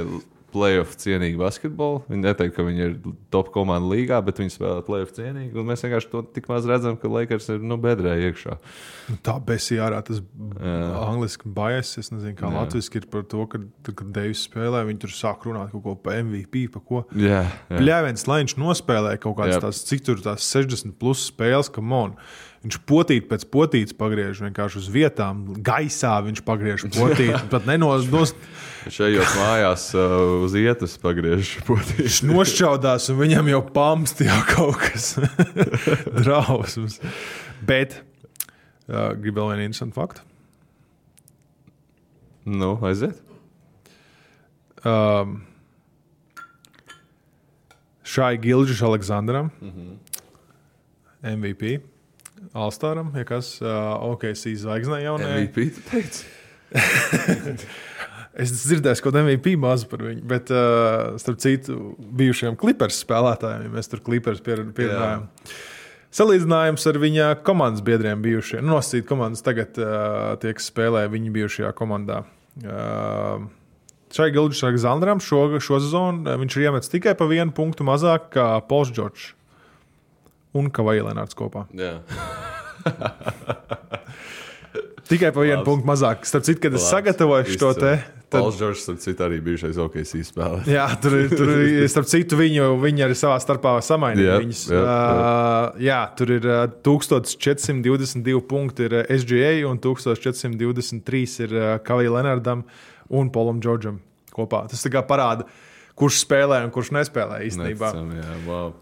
playoff cienīgi basketbolu. Viņi neteikt, ka viņi ir top komanda līgā, bet viņi spēlē playoff cienīgi. Un mēs vienkārši to tik maz redzam, ka Lakers ir bedrē iekšā. Tā besī ārā tas angliski bias, es nezinu, kā latviski ir par to, kad Davis spēlē, viņi tur sāk runāt kaut ko pa MVP, pa ko. Pļāviens, lai viņš nospēlē kaut kādas tās, cik tur tās 60 plus spēles, come on. Viņš potīt pēc potītes pagriež vienkārši uz vietām. Gaisā viņš pagriež potīti. Pat Šajos mājās uz ietas pagriež potīti. Viņš nošķaudās un viņam jau pamst jau kaut kas drausmas. Bet gribu vēl vienu interesantu faktu. Aiziet. Šai Gilģis Aleksandram MVP. All-Staram, ja kas OKC zvaigznē jaunajā. MVP, tu teici? Es dzirdēju kaut MVP mazu par viņu, bet starp citu bijušajiem Clippers spēlētājiem, ja mēs tur Clippers pierunājam. Salīdzinājums ar viņa komandas biedriem bijušajiem. Nosacīt komandas tagad tiek spēlē viņa bijušajā komandā. Šai Gilģis Aleksandram šo sezonu viņš ir iemetis tikai pa 1 punktu mazāk kā Pauls Džordžs. Un Kavaja Lenārds kopā. Jā. Tikai pa 1 punktu mazāk. Starp citu, kad es sagatavoju šo te... Pauls Džordžs, starp citu, arī bijušais OKC spēlē. Jā, tur starp citu, viņi arī savā starpā samainīja viņus. Jā, tur ir 1422 punkti ir SGA un 1423 ir Kavaja Lenārdam un Paulam Džordžam kopā. Tas tā kā parāda, kurš spēlē un kurš nespēlē īstenībā.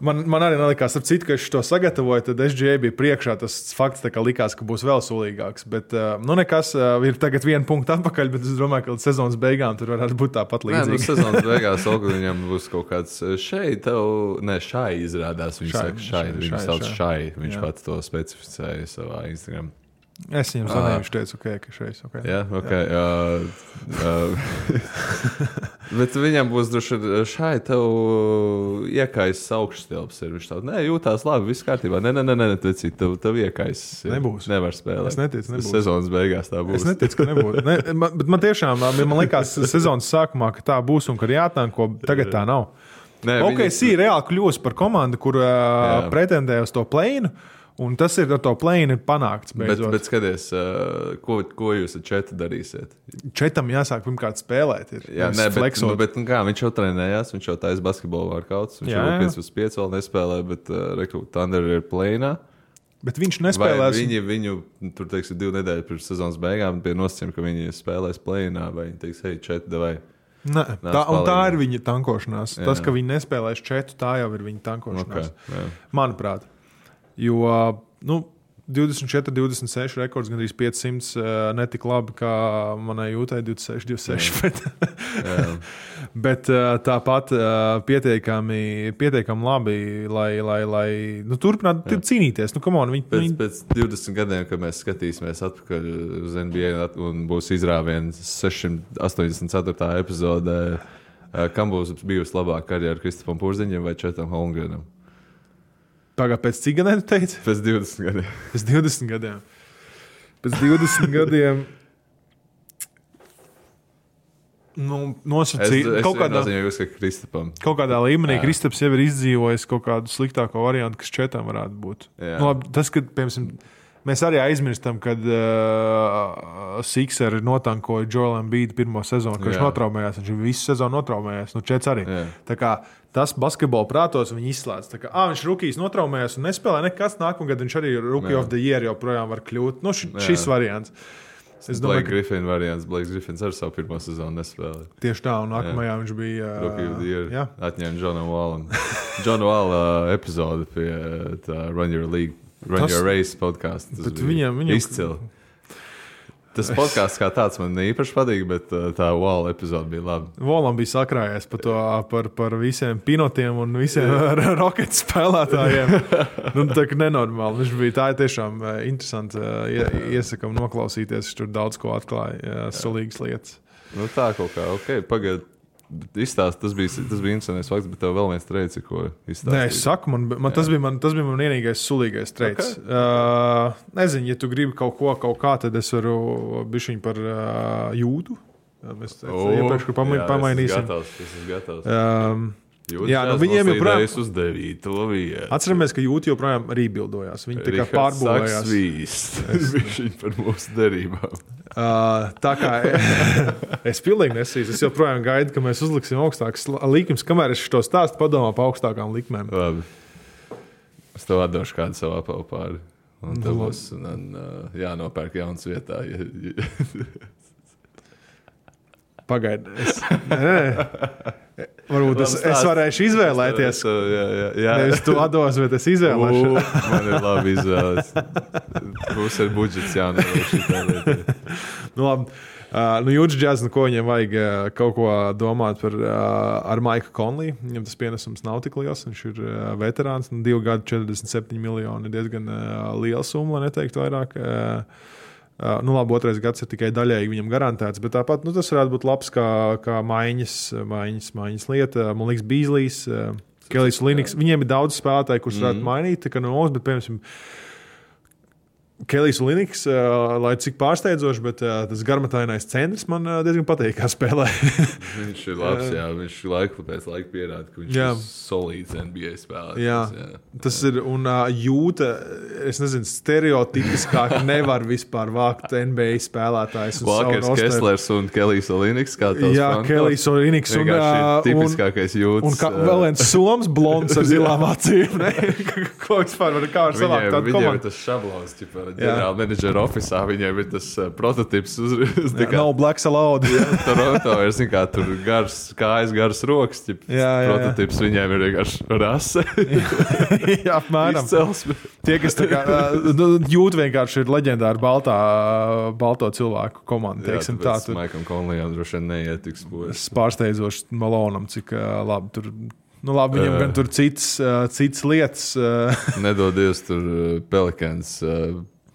Man arī nelikās, ap citu, ka es to sagatavoju, tad SGA bija priekšā. Tas fakts tā kā likās, ka būs vēl sulīgāks. Bet nekas, ir tagad 1 punktu atpakaļ, bet es domāju, ka līdz sezonas beigām tur varētu būt tāpat līdzīgi. Sezonas beigās viņam būs kaut kāds šai izrādās. Viņš sauc šai. Viņš pats to specificēja savā Instagram. Es viņam zvanīju, viņš teica, ka šeit ok. Jā, ok. Bet viņam būs droši šai tev iekais augšstilps. Viņš tā, nē, jūtās labi, viss kārtībā. Nē, tev iekais. Nebūs. Nevar spēlēt. Es neticu, nebūs. Sezonas beigās tā būs. Es neticu, ka nebūs. Bet man tiešām, man likās sezonas sākumā, ka tā būs un ka ir jātanko, tagad tā nav. Nē, OKC reāli kļūst par komandu, kur pretendē uz to plēnu. Un tas ir ar to plēni panākts. Bet skaties, ko jūs ar Četu darīsiet? Četam jāsāk pirmkārt spēlēt. Jā, bet kā, viņš jau trenējās, viņš jau taisa basketbolu vārkauts. Viņš jau 5/5 vēl nespēlē, bet Thunder ir plēnā. Bet viņš nespēlēs. Viņu tur, teiksim, 2 nedēļas pirms sezonas beigām bija nosacījumi, ka viņi spēlēs plēnā, vai viņi teiks, hei, Četu, davai. Tā ir viņa tankošanās. Jā. Tas, ka viņi nespēlēs Četu, tā jau ir viņa tankošanās. Okay, manuprāt. Jo 24, 26 rekords, gandrīz 500, netik labi kā manai jūtai 26, 26. Bet tāpat pietiekami labi, lai turpinātu cīnīties. Pēc 20 gadiem, kad mēs skatīsimies atpakaļ uz NBA un būs izrāviens 684. epizodē, kam būs bijusi labāka karjera Kristofam Porziņam vai Četam Holmgrenam? Pagā, pēc cik gadiem tu teici? Pēc 20 gadiem. Pēc 20 gadiem. Pēc 20 gadiem nosacīt kaut kādā līmenī. Kristaps jau ir izdzīvojis kaut kādu sliktāko variantu, kas Četam varētu būt. Labi, tas, kad, piemēram, mēs arī aizmirstam, kad Sixeri notankoja Joel Embiid pirmo sezonu, ka viņš notraumējās. Viņš visu sezonu notraumējās. Čets arī. Tā kā tas basketbola prātos viņi izslēdz. Tā kā viņš rukijs notraumējās un nespēlē nekas. Nākamgad viņš arī Rookie of the Year joprojām var kļūt. Šis variants. Es domāju, ka Griffin variants. Blakes Griffins ar savu pirmo sezonu nespēlē. Tieši tā, un nākamajā viņš bija Rookie of the Year. Atņēma Johnu Wallu. Johnu Wallu epizode pie Run Your League. Run Your Race podcastu. Tas bija izcili. Tas podcasts kā tāds man īpaši patīk, bet tā Wall epizode bija laba. Wallam bija sakrājies par visiem pinotiem un visiem Rockets spēlētājiem. Tā kā nenormāli. Viņš bija tā tiešām interesanti. Iesakam noklausīties, viņš tur daudz ko atklāja, sulīgas lietas. Tā kaut kā, ok, pagaid. Izstāst, tas bija interesants fakts, bet tev vēl viens treids, ko izstāstīja. Nē, es saku, tas bija man vienīgais sulīgais treids. Okay. Nezinu, ja tu gribi kaut kā, tad es varu bišķiņ par jūtu. Mēs iepriekš pamainīsim. Es esmu gatavs. Viņiem joprojām ir uz 9. vietu. Atceramies, ka jūti joprojām rībildojās. Viņi tā kā pārbūvējās. Viņš par mūsu derībām. Tā kā es pilnīgi nesīju. Es joprojām gaidu, ka mēs uzliksim augstākas likmes. Kamēr es šo stāstu padomā pa augstākām likmēm. Labi. Es tev atdošu kādu savu apavu pāri. Un tev būs jānopērk jauns vietā. Pagaidi. Varbūt es varēšu izvēlēties. Jā. Nevis tu atdos, bet es izvēlēšu. Man ir labi izvēlēts. Būs ar budžets jānoliek šitā lietā. Labi. Jūtas džaz, ko viņiem vajag kaut ko domāt ar Maiku Conley. Viņam tas pienesums nav tik liels. Viņš ir veterāns. 2 gadi 47 miljoni ir diezgan liela summa, lai neteiktu vairāk. Labi, 2. gads ir tikai daļēji viņam garantēts, bet tāpat tas varētu būt labs kā maiņas lieta. Man liekas, Beasley's, Kelijs Links. Viņiem ir daudz spēlētāji, kurus varētu mainīt, bet, piemēram, Kelijs Links, lai cik pārsteidzoši, bet tas garmatainais centrs man diezgan patīk, kā spēlē. Viņš ir labs, viņš laiku pēc laika pierāda, ka viņš ir solīds NBA spēlētājs. Tas ir, un jūta, es nezinu, stereotipiskāk nevar vispār vākt NBA spēlētājs. Walkers, Kesslers un Kelijs Links, kā tos Jā, Kelijs Links. Tipiskākais jūtas. Un vēl viens soms blonds ar zilām acīm. Ko vispār var savākt tādu komandu? Viņiem ir tas šablons, ģenerāla menedžera ofisā, viņiem ir tas prototips nav Black Salauda. Toronto ir, tur kājas, garas rokas, prototips viņiem ir vienkārši rase. Jā, apmēram. Tie, kas tā kā jūt vienkārši ir leģendāri balto cilvēku komanda. Jā, tāpēc Maikam Conleyam droši vien neietiks. Pārsteidzoši Malonam, cik labi tur. Labi, viņam gan tur cits lietas. Nedodies tur Pelicans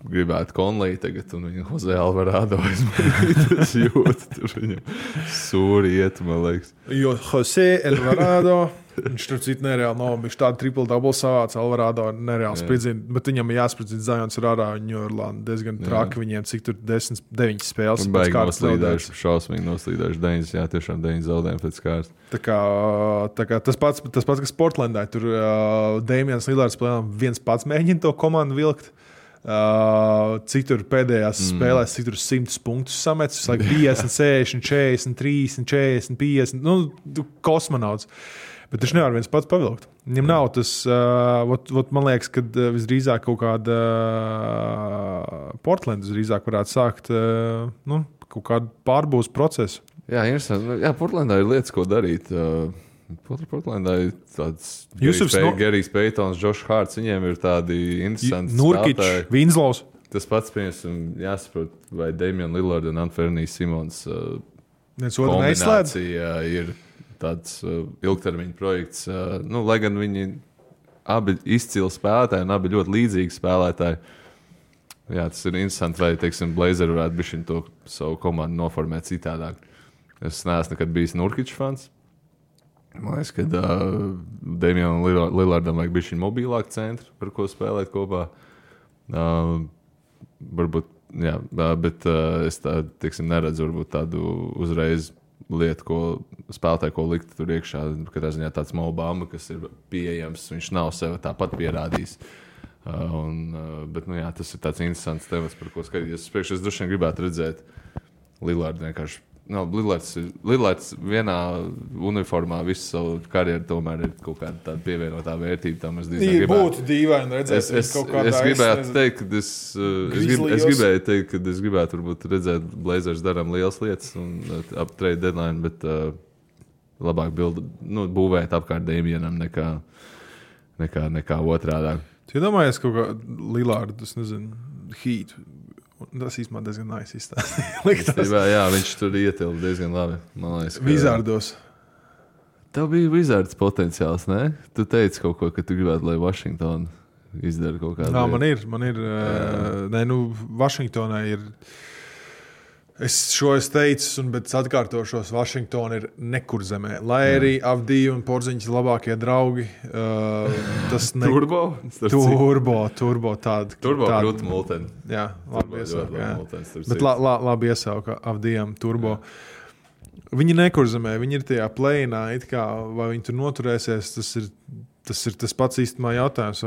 gribētu Conley tagad, un viņa Jose Alvarado es jūtu, tur viņam sūri iet, man liekas. Jo Jose Alvarado, viņš tur citu nereāli nav, viņš tādu triple-double savāc, Alvarado nereāli spridzina, bet viņam jāspridzina Zions Rārā, jo Orlando diezgan traki viņiem, cik tur 9 spēles. Baigi noslīdējuši, šausmīgi noslīdējuši 9, jā, tiešām 9 zaudējumi pēc kārtas. Tā kā tas pats, kas Portlandā, tur Damians Lillards plēnām viens pats mēģina to komandu vilkt. Cik tur pēdējās spēlēs, cik tur 100 punktus sametis, 50, 60, 40, 30, 40, 50, nu, kosmonauts. Bet viņš nevar viens pats pavilkt. Viņam nav tas, man liekas, ka visdrīzāk kaut kāda Portland visdrīzāk varētu sākt kaut kādu pārbūves procesu. Jā, interesanti. Jā, Portlandā ir lietas, ko darīt. Portlandā ir tāds Gerijs Peitons, Josh Harts, viņiem ir tādi interesanti Nurkič, Winslows. Tas pats, piemēram, jāsaprot, vai Damian Lillard un Anthony Simons kombinācija ir tāds ilgtermiņa projekts. Lai gan viņi abi izcili spēlētāji un abi ļoti līdzīgi spēlētāji. Jā, tas ir interesanti, vai, teiksim, Blazeri varētu bišķiņ to savu komandu noformēt citādāk. Es neesmu nekad bijis Nurkič fans. Man liekas, ka Damianam Lillardam vajag bišķiņ mobilāku centru, par ko spēlēt kopā. Varbūt, jā, bet es tā, teiksim, neredzu varbūt tādu uzreiz lietu, ko spēlētāji, ko likt tur iekšā. Katrā ziņā tāds Mo Bamba, kas ir pieejams, viņš nav sev tāpat pierādījis. Bet, jā, tas ir tāds interesants temats, par ko skatīties. Es droši vien gribētu redzēt Lillardu vienkārši. Lillards vienā uniformā visu savu karjeru tomēr ir kaut kāda tāda pievienotā vērtība. Tam es būtu dīvaini redzēt. Es gribētu teikt, ka es gribētu varbūt redzēt Blazers darām lielas lietas un ap trade deadline, bet labāk būvēt apkārt Damianam nekā otrādā. Tu iedomājies kaut kā Lillardu, es nezinu, Heat. Tas īstenībā diezgan nice izstāstīt. Jā, viņš tur ietilpa diezgan labi. Wizardos. Tev bija Wizards potenciāls, ne? Tu teici kaut ko, ka tu gribētu, lai Washington izdara kaut kādu. Jā, man ir. Vašingtonai ir. Es teicu, bet atkārtošos, Vašingtona ir nekur zemē. Lai arī Avdija un Porziņš ir labākie draugi. Turbo tāda. Turbo krūta multeni. Jā, labi iesauka. Bet labi iesauka Avdijam Turbo. Viņi nekur zemē, viņi ir tajā play-inā, vai viņi tur noturēsies, tas ir tas pats īstenībā jautājums,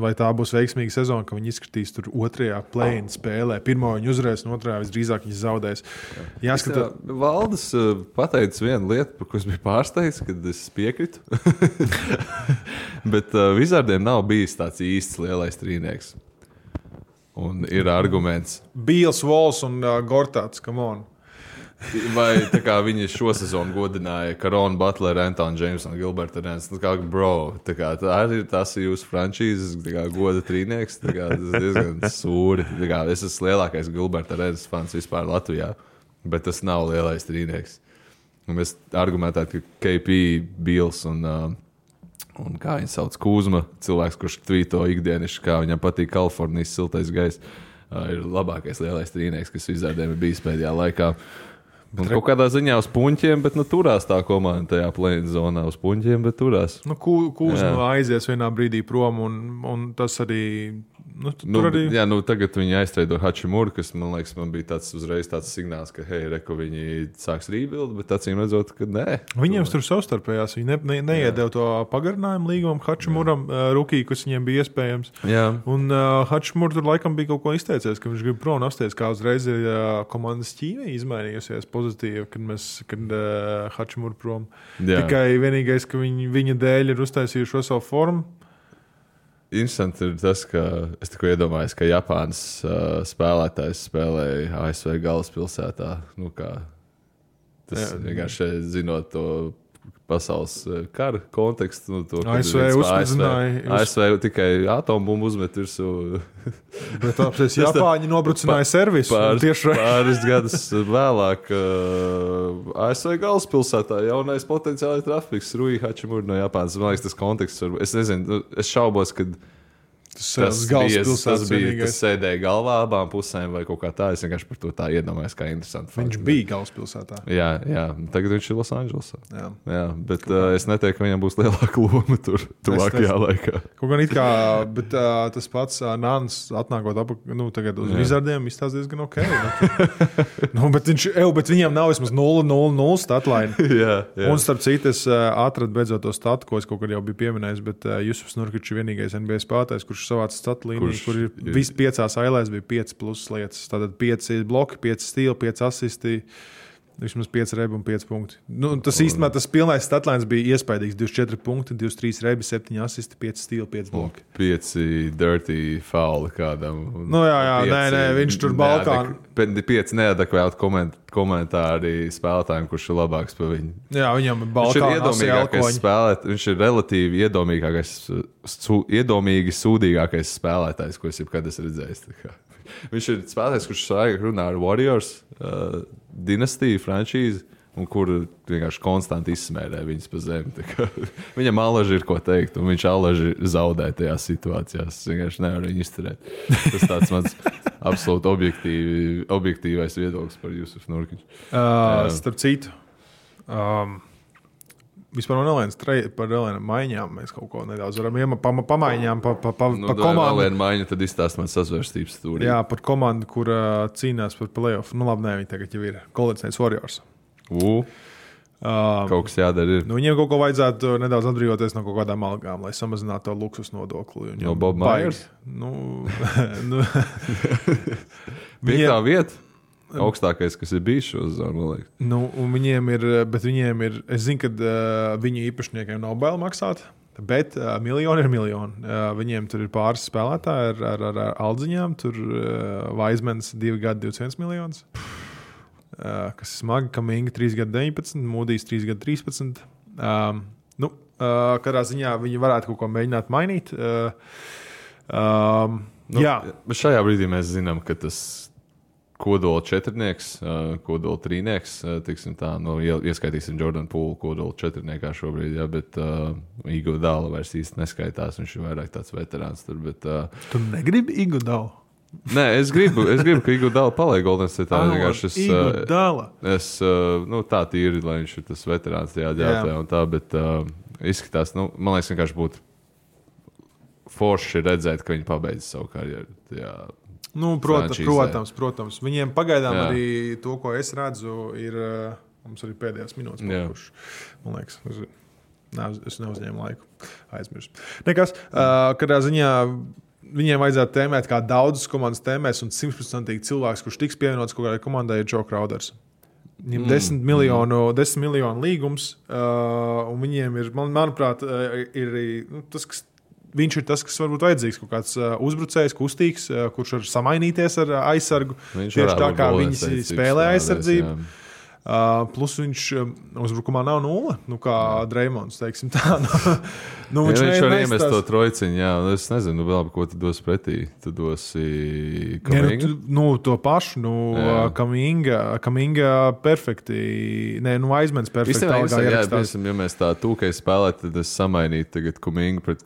vai tā būs veiksmīga sezona, ka viņi izskatīs tur otrajā play-in spēlē. Pirmo viņi uzvarēs, un otrajā visdrīzāk viņi zaudēs. Jāskatā. Valdes pateicis vienu lietu, par ko es biju pārsteigts, kad es piekritu. Bet Wizardiem nav bijis tāds īsts lielais trīnieks. Un ir arguments. Beals, Walls un Gortats, come on. Vai tā kā viņi šo sezonu godināja Karonu Butleru, Antonu Jamesu un Gilbertu Arenas. Tas ir jūsu frančīzes goda trīnieks. Tas ir diezgan sūri. Es esmu lielākais Gilbertu Arenas fans vispār Latvijā, bet tas nav lielais trīnieks. Un mēs argumentētu, ka KP, Beals un kā viņi sauc, Kuzma, cilvēks, kurš tvīto ikdienišķi, kā viņam patīk Kalifornijas siltais gaiss, ir labākais lielais trīnieks, kas Wizardiem ir bijis pēdējā laikā. Un kaut kādā ziņā uz puņķiem, bet turās tā komanda tajā play-in zonā uz puņķiem, bet turās. Kūzma aizies vienā brīdī prom, un tas arī... arī... Jā, tagad viņi aiztreido Hachimuru, kas, man liekas, man bija uzreiz tāds signāls, ka, reku, viņi sāks rebuild, bet acīm redzot, ka nē. Viņiem tur savstarpējās, viņi neiedēv to pagarinājumu līgumam Hachimuram, rukī, kas viņiem bija iespējams. Jā. Un Hachimur tur laikam bija kaut ko izteicies, ka viņš grib prom apsties, kā uzreiz ir komandas ķīmija izmainījusies pozitīvi, kad Hachimur prom. Jā. Tikai vienīgais, ka viņa dēļ ir uztaisījuši savu formu. Interesanti ir tas, ka es tikko iedomājos, ka Japānas spēlētājs spēlēja ASV galvaspilsētā. Tas vienkārši zinot to pasaules kara kontekstu. ASV uzspēdzināja. ASV tikai atombumbu uzmet virsū. Bet apsies Japāņi nobrucināja servisu. Pāris gadus vēlāk ASV galvaspilsētā jaunais potenciālais trafiks Rui Hachimura no Japānas. Man liekas, tas konteksts. Es nezinu, es šaubos, kad Tas sēdēja galvā abām pusēm vai kaut kā tā. Es vienkārši par to tā iedomājos, kā interesanti. Viņš bija galvaspilsētā. Jā. Tagad viņš ir Losandželosā. Jā, bet es neteiktu, ka viņam būs lielāka loma tur tuvākajā laikā. Kaut gan it kā, bet tas pats Nāns atnākot tagad uz Wizardiem izstāsta diezgan ok. Bet viņam nav vismaz 0-0-0 statline. Jā. Un starp citu, es atradu beidzot to statu, ko es kaut kad jau biju pieminējis, bet Jusufs Nurkičs ir vienīgais NBA spēlētājs, kurš savāca statu līniju, kur ir visi 5 ailēs bija 5 plus lietas. Tātad 5 bloki, 5 stili, 5 asisti, vismaz 5 rebi un 5 punkti. Tas īstenībā tas pilnais statlines bija iespaidīgs. 24 punkti, 23 rebi, 7 asisti, 5 stili, 5 bloki. 5 dirty fauli kādam. Nē, viņš tur Balkānu. 5 neadekvāti komentāri spēlētājiem, kurš ir labāks par viņu. Jā, viņam ir Balkānu spēlētājs. Viņš ir relatīvi iedomīgi sūdīgākais spēlētājs, ko es jebkad esmu redzējis. Viņš ir spēlētājs, kurš svaigi runā ar Warriors dinastiju, frančīzi, un kur vienkārši konstanti izsmērē viņas pa zemi. Viņam alaži ir ko teikt, un viņš alaži zaudē tajās situācijās. Es vienkārši nevaru viņu izturēt. Tas tāds mans absolūti objektīvais viedoklis par Jusufu Nurkiču. Starp citu, vispār par Elēnu maiņām mēs kaut ko nedaudz varam pamaiņām pa komandu. Elēnu maiņu tad izstāst man sazvērstības stūrī. Jā, par komandu, kur cīnās par playoff. Labi, viņi tagad jau ir Golden State Warriors. Kaut kas jādara ir. Viņiem kaut ko vajadzētu nedaudz atbrīvoties no kaut kādām algām, lai samazinātu to luksus nodokli. Jo Bob Myers? Piektā vieta? Augstākais, kas ir bijis šo zonu, man liekas. Viņiem ir, es zinu, ka viņu īpašniekiem nav bail maksāt, bet miljoni ir miljoni. Viņiem tur ir pāris spēlētāji ar aldziņām, tur Vaizmans 2 gadi 21 miljonus, kas ir smagi, Kaminga 3 gadi 19, Mūdijs 3 gadi 13. Katrā ziņā viņi varētu kaut ko mēģināt mainīt. Bet šajā brīdī mēs zinām, ka tas kodola četrnieks, kodola trīnieks, ieskaitīsim Jordan Poole kodola četrniekā šobrīd, bet Iguodala vairs īsti neskaitās, viņš ir vairāk tāds veterāns tur, bet... Tu negribi Iguodalu? Nē, es gribu, ka Iguodala paliek Golden State. Iguodala? Tā tīri, lai viņš ir tas veterāns tajā ģērbtē un tā, bet izskatās, man liekas, vienkārši būtu forši redzēt, ka viņi pabeidz savu karjeru tajā. Protams. Viņiem pagaidām arī to, ko es redzu, ir mums arī pēdējās minūtes palikušas. Man liekas, es neuzņēmu laiku. Aizmirsu. Nekas, kādā ziņā viņiem vajadzētu tēmēt, kā daudzas komandas tēmēs, un 100% cilvēks, kurš tiks pievienots kaut kādai komandai, ir Joe Crowders. Viņiem 10 miljonu līgums, un viņiem ir, manuprāt, ir tas, kas viņš ir tas, kas varbūt vajadzīgs, kaut kāds uzbrucējs, kustīgs, kurš var samainīties ar aizsargu. Tieši tā kā viņi spēlē aizsardzību. Plus viņš uzbrukumā nav 0, kā Dreimonds, teiksim tā. Viņš var iemest to trojciņu, es nezinu, vēl ko tu dos pretī. Tu dosi Kaminga? To pašu, Kaminga perfekti, Aizmens perfekti. Ja mēs tā tūkai spēlētu, tad es samainītu tagad Kaminga pret...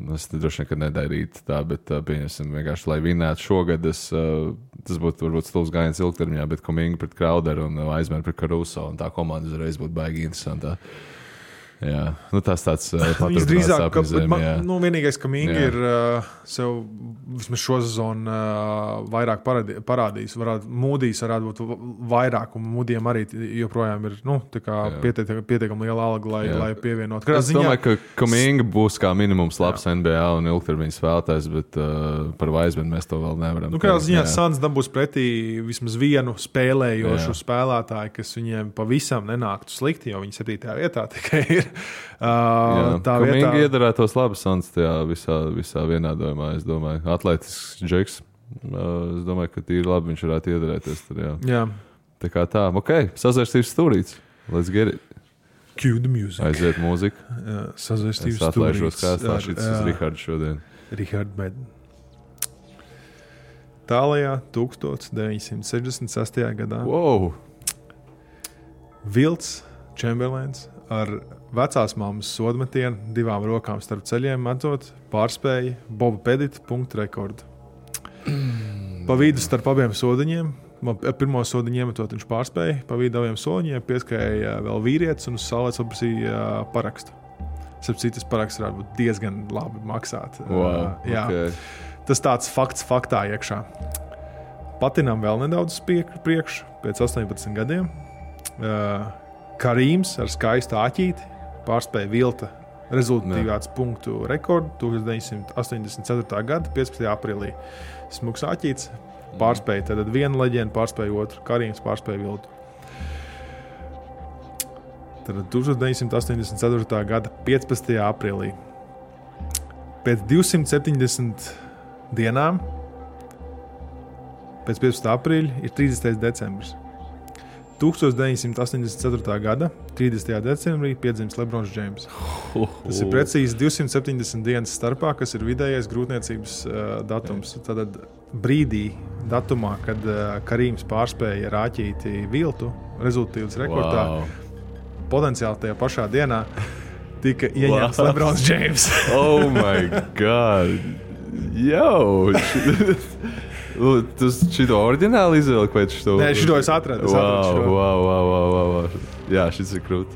Es droši vien, ka nedarītu tā, bet pieņemsim vienkārši, lai vinētu šogad, tas būtu varbūt stulbs gājiens ilgtermiņā, bet Kaminga pret Crowderu un Aizmenu pret Caruso, un tā komanda uzreiz būtu baigi interesantā. Jā, tas tāds paturpinās apizēm. Vienīgais, ka Mingi ir sev vismaz šo sezonu vairāk parādījis. Mūdijs varētu būt vairāk, un Mūdijam arī joprojām ir pietiekami liela alga, lai pievienot. Es domāju, ka Mingi būs kā minimums labs NBA un ilgtermiņa spēlētājs, bet par Vaizmenu mēs to vēl nevaram. Kādā ziņā Suns dabūs pretī vismaz vienu spēlējošu spēlētāju, kas viņiem pavisam nenāktu slikti, jo viņi 7. vietā tikai ir. Tā vietā iedarētos labi Suns tajā visā vienādojumā, es domāju. Atletisks džeks. Es domāju, ka tīri labi viņš varētu iedarēties tur, jā. Tā kā tā. Sazvērstības stūrīts. Let's get it. Cue the music. Aiziet mūzika. Sazvērstības stūrīts. Es atlaižos kā stāšītas uz Rihardu šodien. Richard Madden. Tālajā 1966. gadā. Wow! Vilts Chamberlains ar vecās mammas sodmetienu 2 rokām starp ceļiem metot pārspēja Boba Pedita punktu rekordu. Pa vidu starp abiem sodiņiem, pirmo sodiņu iemetot viņš pārspēja, pa vidu abiem sodiņiem pieskrēja vēl vīrietis un uz saulēs paprasīja parakstu. Citas paraksts varētu būt diezgan labi maksāt. Wow, okay. Tas tāds fakts faktā iekšā. Patinam vēl nedaudz priekšu, pēc 18 gadiem. Karīms ar skaistu āķīti pārspēja vilta rezultatīvāts punktu rekordu 1984. gada 15. aprīlī. Smuks āķīts pārspēja, tad viena leģenda pārspēja otru. Karīms pārspēja viltu. Tad 1984. gada 15. aprīlī. Pēc 270 dienām pēc 15. aprīļa ir 30. decembris. 1984. gada 30. decembrī piedzimis Lebrons Džeims. Tas ir precīzi 270 dienas starpā, kas ir vidējais grūtniecības datums. Tātad brīdī, datumā, kad Karīms pārspēja rāķīti viltu rezultatīvas rekordā, potenciāli tajā pašā dienā tika ieņemts Lebrons Džeims. Oh my God! Yo! Tu šito oriģināli izvēlēji pēc šito? Nē, šito es atradu. Wow. Jā, šis ir krūt.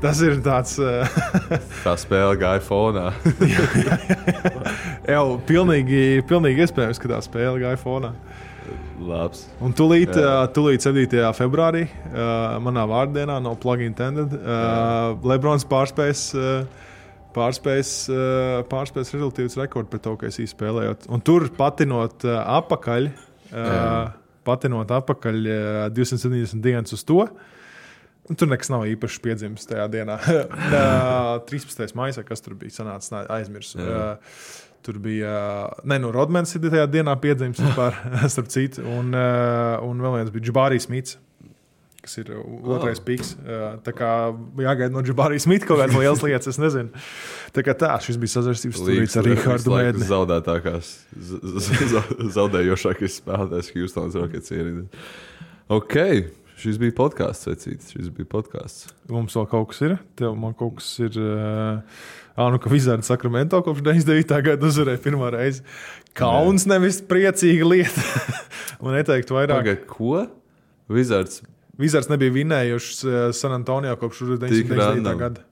Tas ir tāds... Tā spēle gāja fonā. Jau pilnīgi iespējams, ka tā spēle gāja fonā. Labs. Un tūlīt 7. februārī, manā vārdienā, no plug intended, Lebrons pārspējas rezultīvas rekordu pret to, ka es spēlējot. Un tur patinot apakaļ 270 dienas uz to, un tur nekas nav īpaši piedzimis tajā dienā. 13. maijā, kas tur bija sanācis, aizmirsu. Tur bija, Rodmans ir tajā dienā piedzimis vispār, starp citu, un vēl viens bija Džabārī Smits, kas ir otrais piks. Tā kā jāgaida no Džabārī Smita kaut kādas lielas lietas, es nezinu. Tā kā šis bija sazvērstības stūrīts ar Rihardu Mēdni. Zaudētākās, zaudējošākais spēlētājs Houstons Rockets ierīdē. Ok, šis bija podcasts, vecītis, Mums vēl kaut kas ir? Man kaut kas ir... ka Wizards Sacramento kopš 99. gada uzvarēja pirmā reizi. Kauns nevis priecīga lieta. Man neteiktu vairāk. Pagad, ko? Wizards nebija vinējušs San Antonio kopš 1999. gada.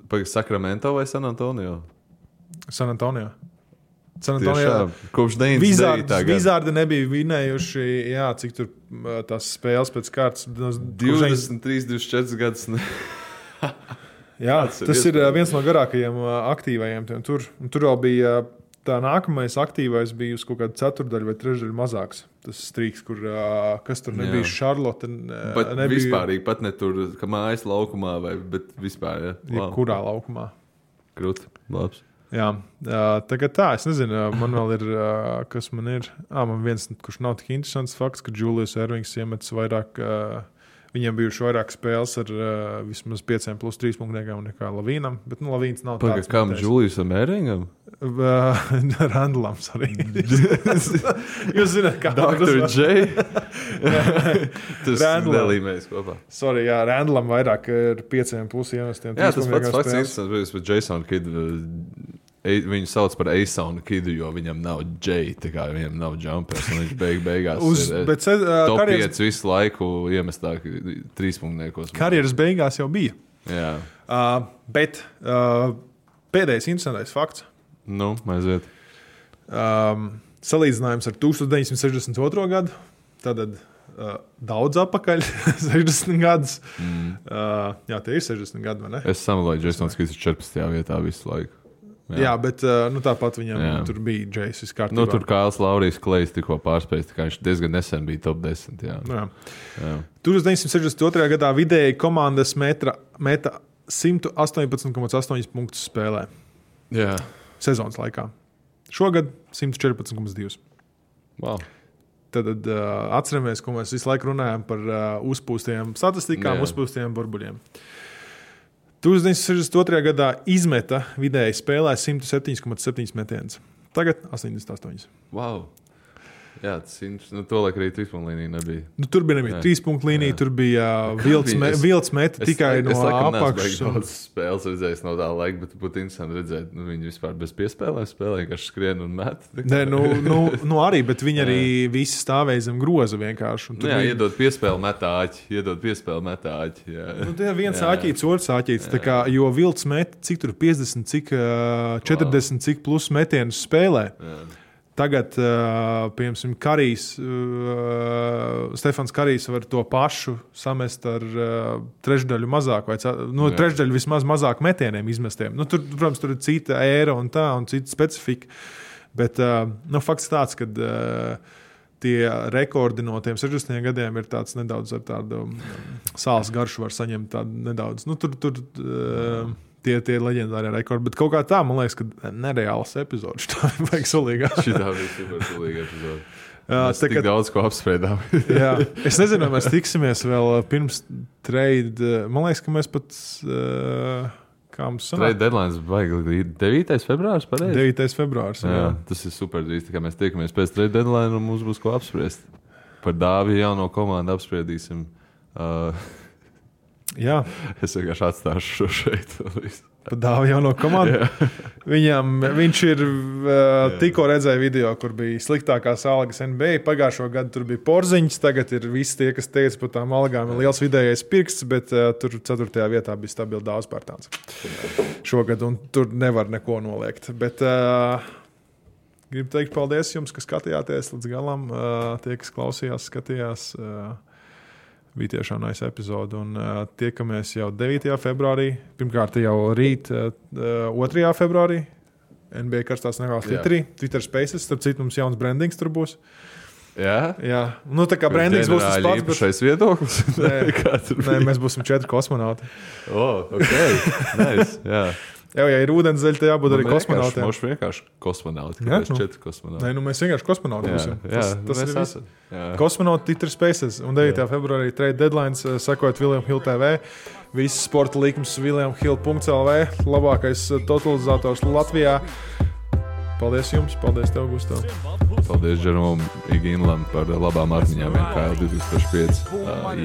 Pagad, Sacramento vai San Antonio? San Antonio. Tiešām, kopš 99. gada. Wizardi nebija vinējuši, cik tur tās spēles pēc kārtas. 23, 24 gadus. Tas ir viens no garākajiem aktīvajiem. Tur vēl bija tā nākamais aktīvais bija uz kaut kādu ceturdaļu vai trešdaļu mazāks. Tas strīks, kas tur nebija Charlotte. Nebija vispārīgi, pat ne tur, ka mājas laukumā, bet vispār. Kurā laukumā? Krūti, labs. Jā, tagad es nezinu, man vēl ir, kas man ir. Man viens, kurš nav tik interesants fakts, ka Julius Ervings iemetis vairāk... Viņiem bijuši vairāk spēles ar vismaz 5+3 punktniekiem nekā Lavīnam, bet Lavīns nav tāds. Kam Juliusam Ervingam? Randlam, sorry. Jūs zināt, kā Dr. J? Tas nelīmējas kopā. Sorry, Randlam vairāk ar 5+ iemestiem. Jā, tas pats fakts interesants, bet Jason Kidd, viņu sauc par Eisonu Kidu, jo viņam nav J, tā kā viņam nav jumpers, un viņš beigās top 5 visu laiku iemestāk 3 punktniekos. Karjeras beigās jau bija. Jā. Bet pēdējais interesantais fakts. Aiziet. Salīdzinājums ar 1962. gadu, tātad daudz apakaļ, 60 gadus. Jā, tie ir 60 gadi, vai ne? Es samaloju, Jasons Kids ir 14. vietā visu laiku. Jā, bet tāpat viņam tur bija Džejs viskārtībā. Tur Kāls Laurijs Klejs tikko pārspējis, tā kā viņš diezgan nesen bija top 10. Jā. 1962. gadā vidēji komandas meta 118,8 punktus spēlē. Jā. Sezonas laikā. Šogad 114,2. Wow. Tad atceramies, ko mēs visu laiku runājam par uzpūstiem statistikām, uzpūstiem burbuļiem. 1962. gadā izmeta vidēji spēlē 107,7 metienus. Tagad 88. Wow. Jā, to laik arī 3-punktlīnija nebija. Tur bija 3-punktlīnija, tur bija vilts meta tikai no apakšas. Es daudz spēles redzējis no tā laika, bet būtu interesanti redzēt, viņi vispār bez piespēlēm spēlē, vienkārši skrien un met. Nē, arī, bet viņi arī visi stāvēja zem groza vienkārši. Jā, iedod piespēli metāķi. Tie viens āķīts, otrs āķīts, jo vilts meta, cik tur 50, cik 40, cik plus metienus spēlē. Jā. Tagad, piemēram, Stefans Karijs var to pašu samest ar trešdaļu mazāk, vai trešdaļu vismaz mazāk metieniem izmestiem. Tur, protams, tur ir cita ēra un cita specifika. Bet fakts tāds, ka tie rekordi no tiem 60 gadiem ir tāds nedaudz ar tādu sāls garšu var saņemt tādu nedaudz. Tie leģendārie rekordi, bet kaut kā tā, man liekas, ka nereāls epizodes. Tā vajag sulīgā. Šitā bija super sulīga epizode. Mēs tik daudz ko apspriedām. Jā, es nezinu, vai mēs tiksimies vēl pirms trade. Man liekas, ka mēs pat... kā mums sanāk? Trade deadlines vajag 9. februārs, pareizi? 9. februārs, jā. Tas ir super drīz, tā kā mēs tiekamies pēc trade deadline un mums būs ko apspriest. Par Dāvi jauno komandu apspriedīsim. Jā. Es vienkārši atstāšu šo šeit. Pat Dāvi jauno komandu. Viņš ir tikko redzēja video, kur bija sliktākās algas NBA. Pagājušo gadu tur bija Porziņš, tagad ir visi tie, kas teica par tām algām ir liels vidējais pirksts, bet tur 4. vietā bija stabili Dāvs Pērtāns šogad, un tur nevar neko noliegt. Bet gribu teikt paldies jums, kas skatījāties līdz galam. Tie, kas klausījās, skatījās. Bija tiešām nice epizode, un tiekamies jau 9. februārī. Pirmkārt jau rīt 2. februārī. NBA karstās negās Twitterī. Twitter Spaces, starp citu mums jauns brandings tur būs. Jā? Tā kā brandings būs tas pats. Šais viedoklis? Nē, mēs būsim 4 kosmonauti. Ok. Nice, jā. Ja ir ūdenszeļi, tad jābūt arī kosmonautiem. Mums vienkārši kosmonauti. Kāpēc 4 kosmonauti? Nē, mēs vienkārši kosmonauti būsim. Tas ir viss. Jā. Kosmonauti Twitter Spaces. Un 9. februārī trade deadlines, sekojot William Hill TV. Viss sporta līkums williamhill.lv. Labākais totalizators Latvijā. Paldies jums, paldies tev, Gustav. Paldies Džerom Iginlam par labām atmiņām NKL 2005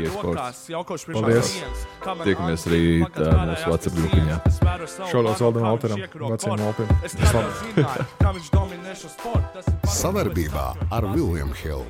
e-sports. Paldies. Tiekamies rīt mūsu WhatsApp grupiņā. Šodien Valdam Alteram, veciem Alpiem. Savarbībā ar William Hill.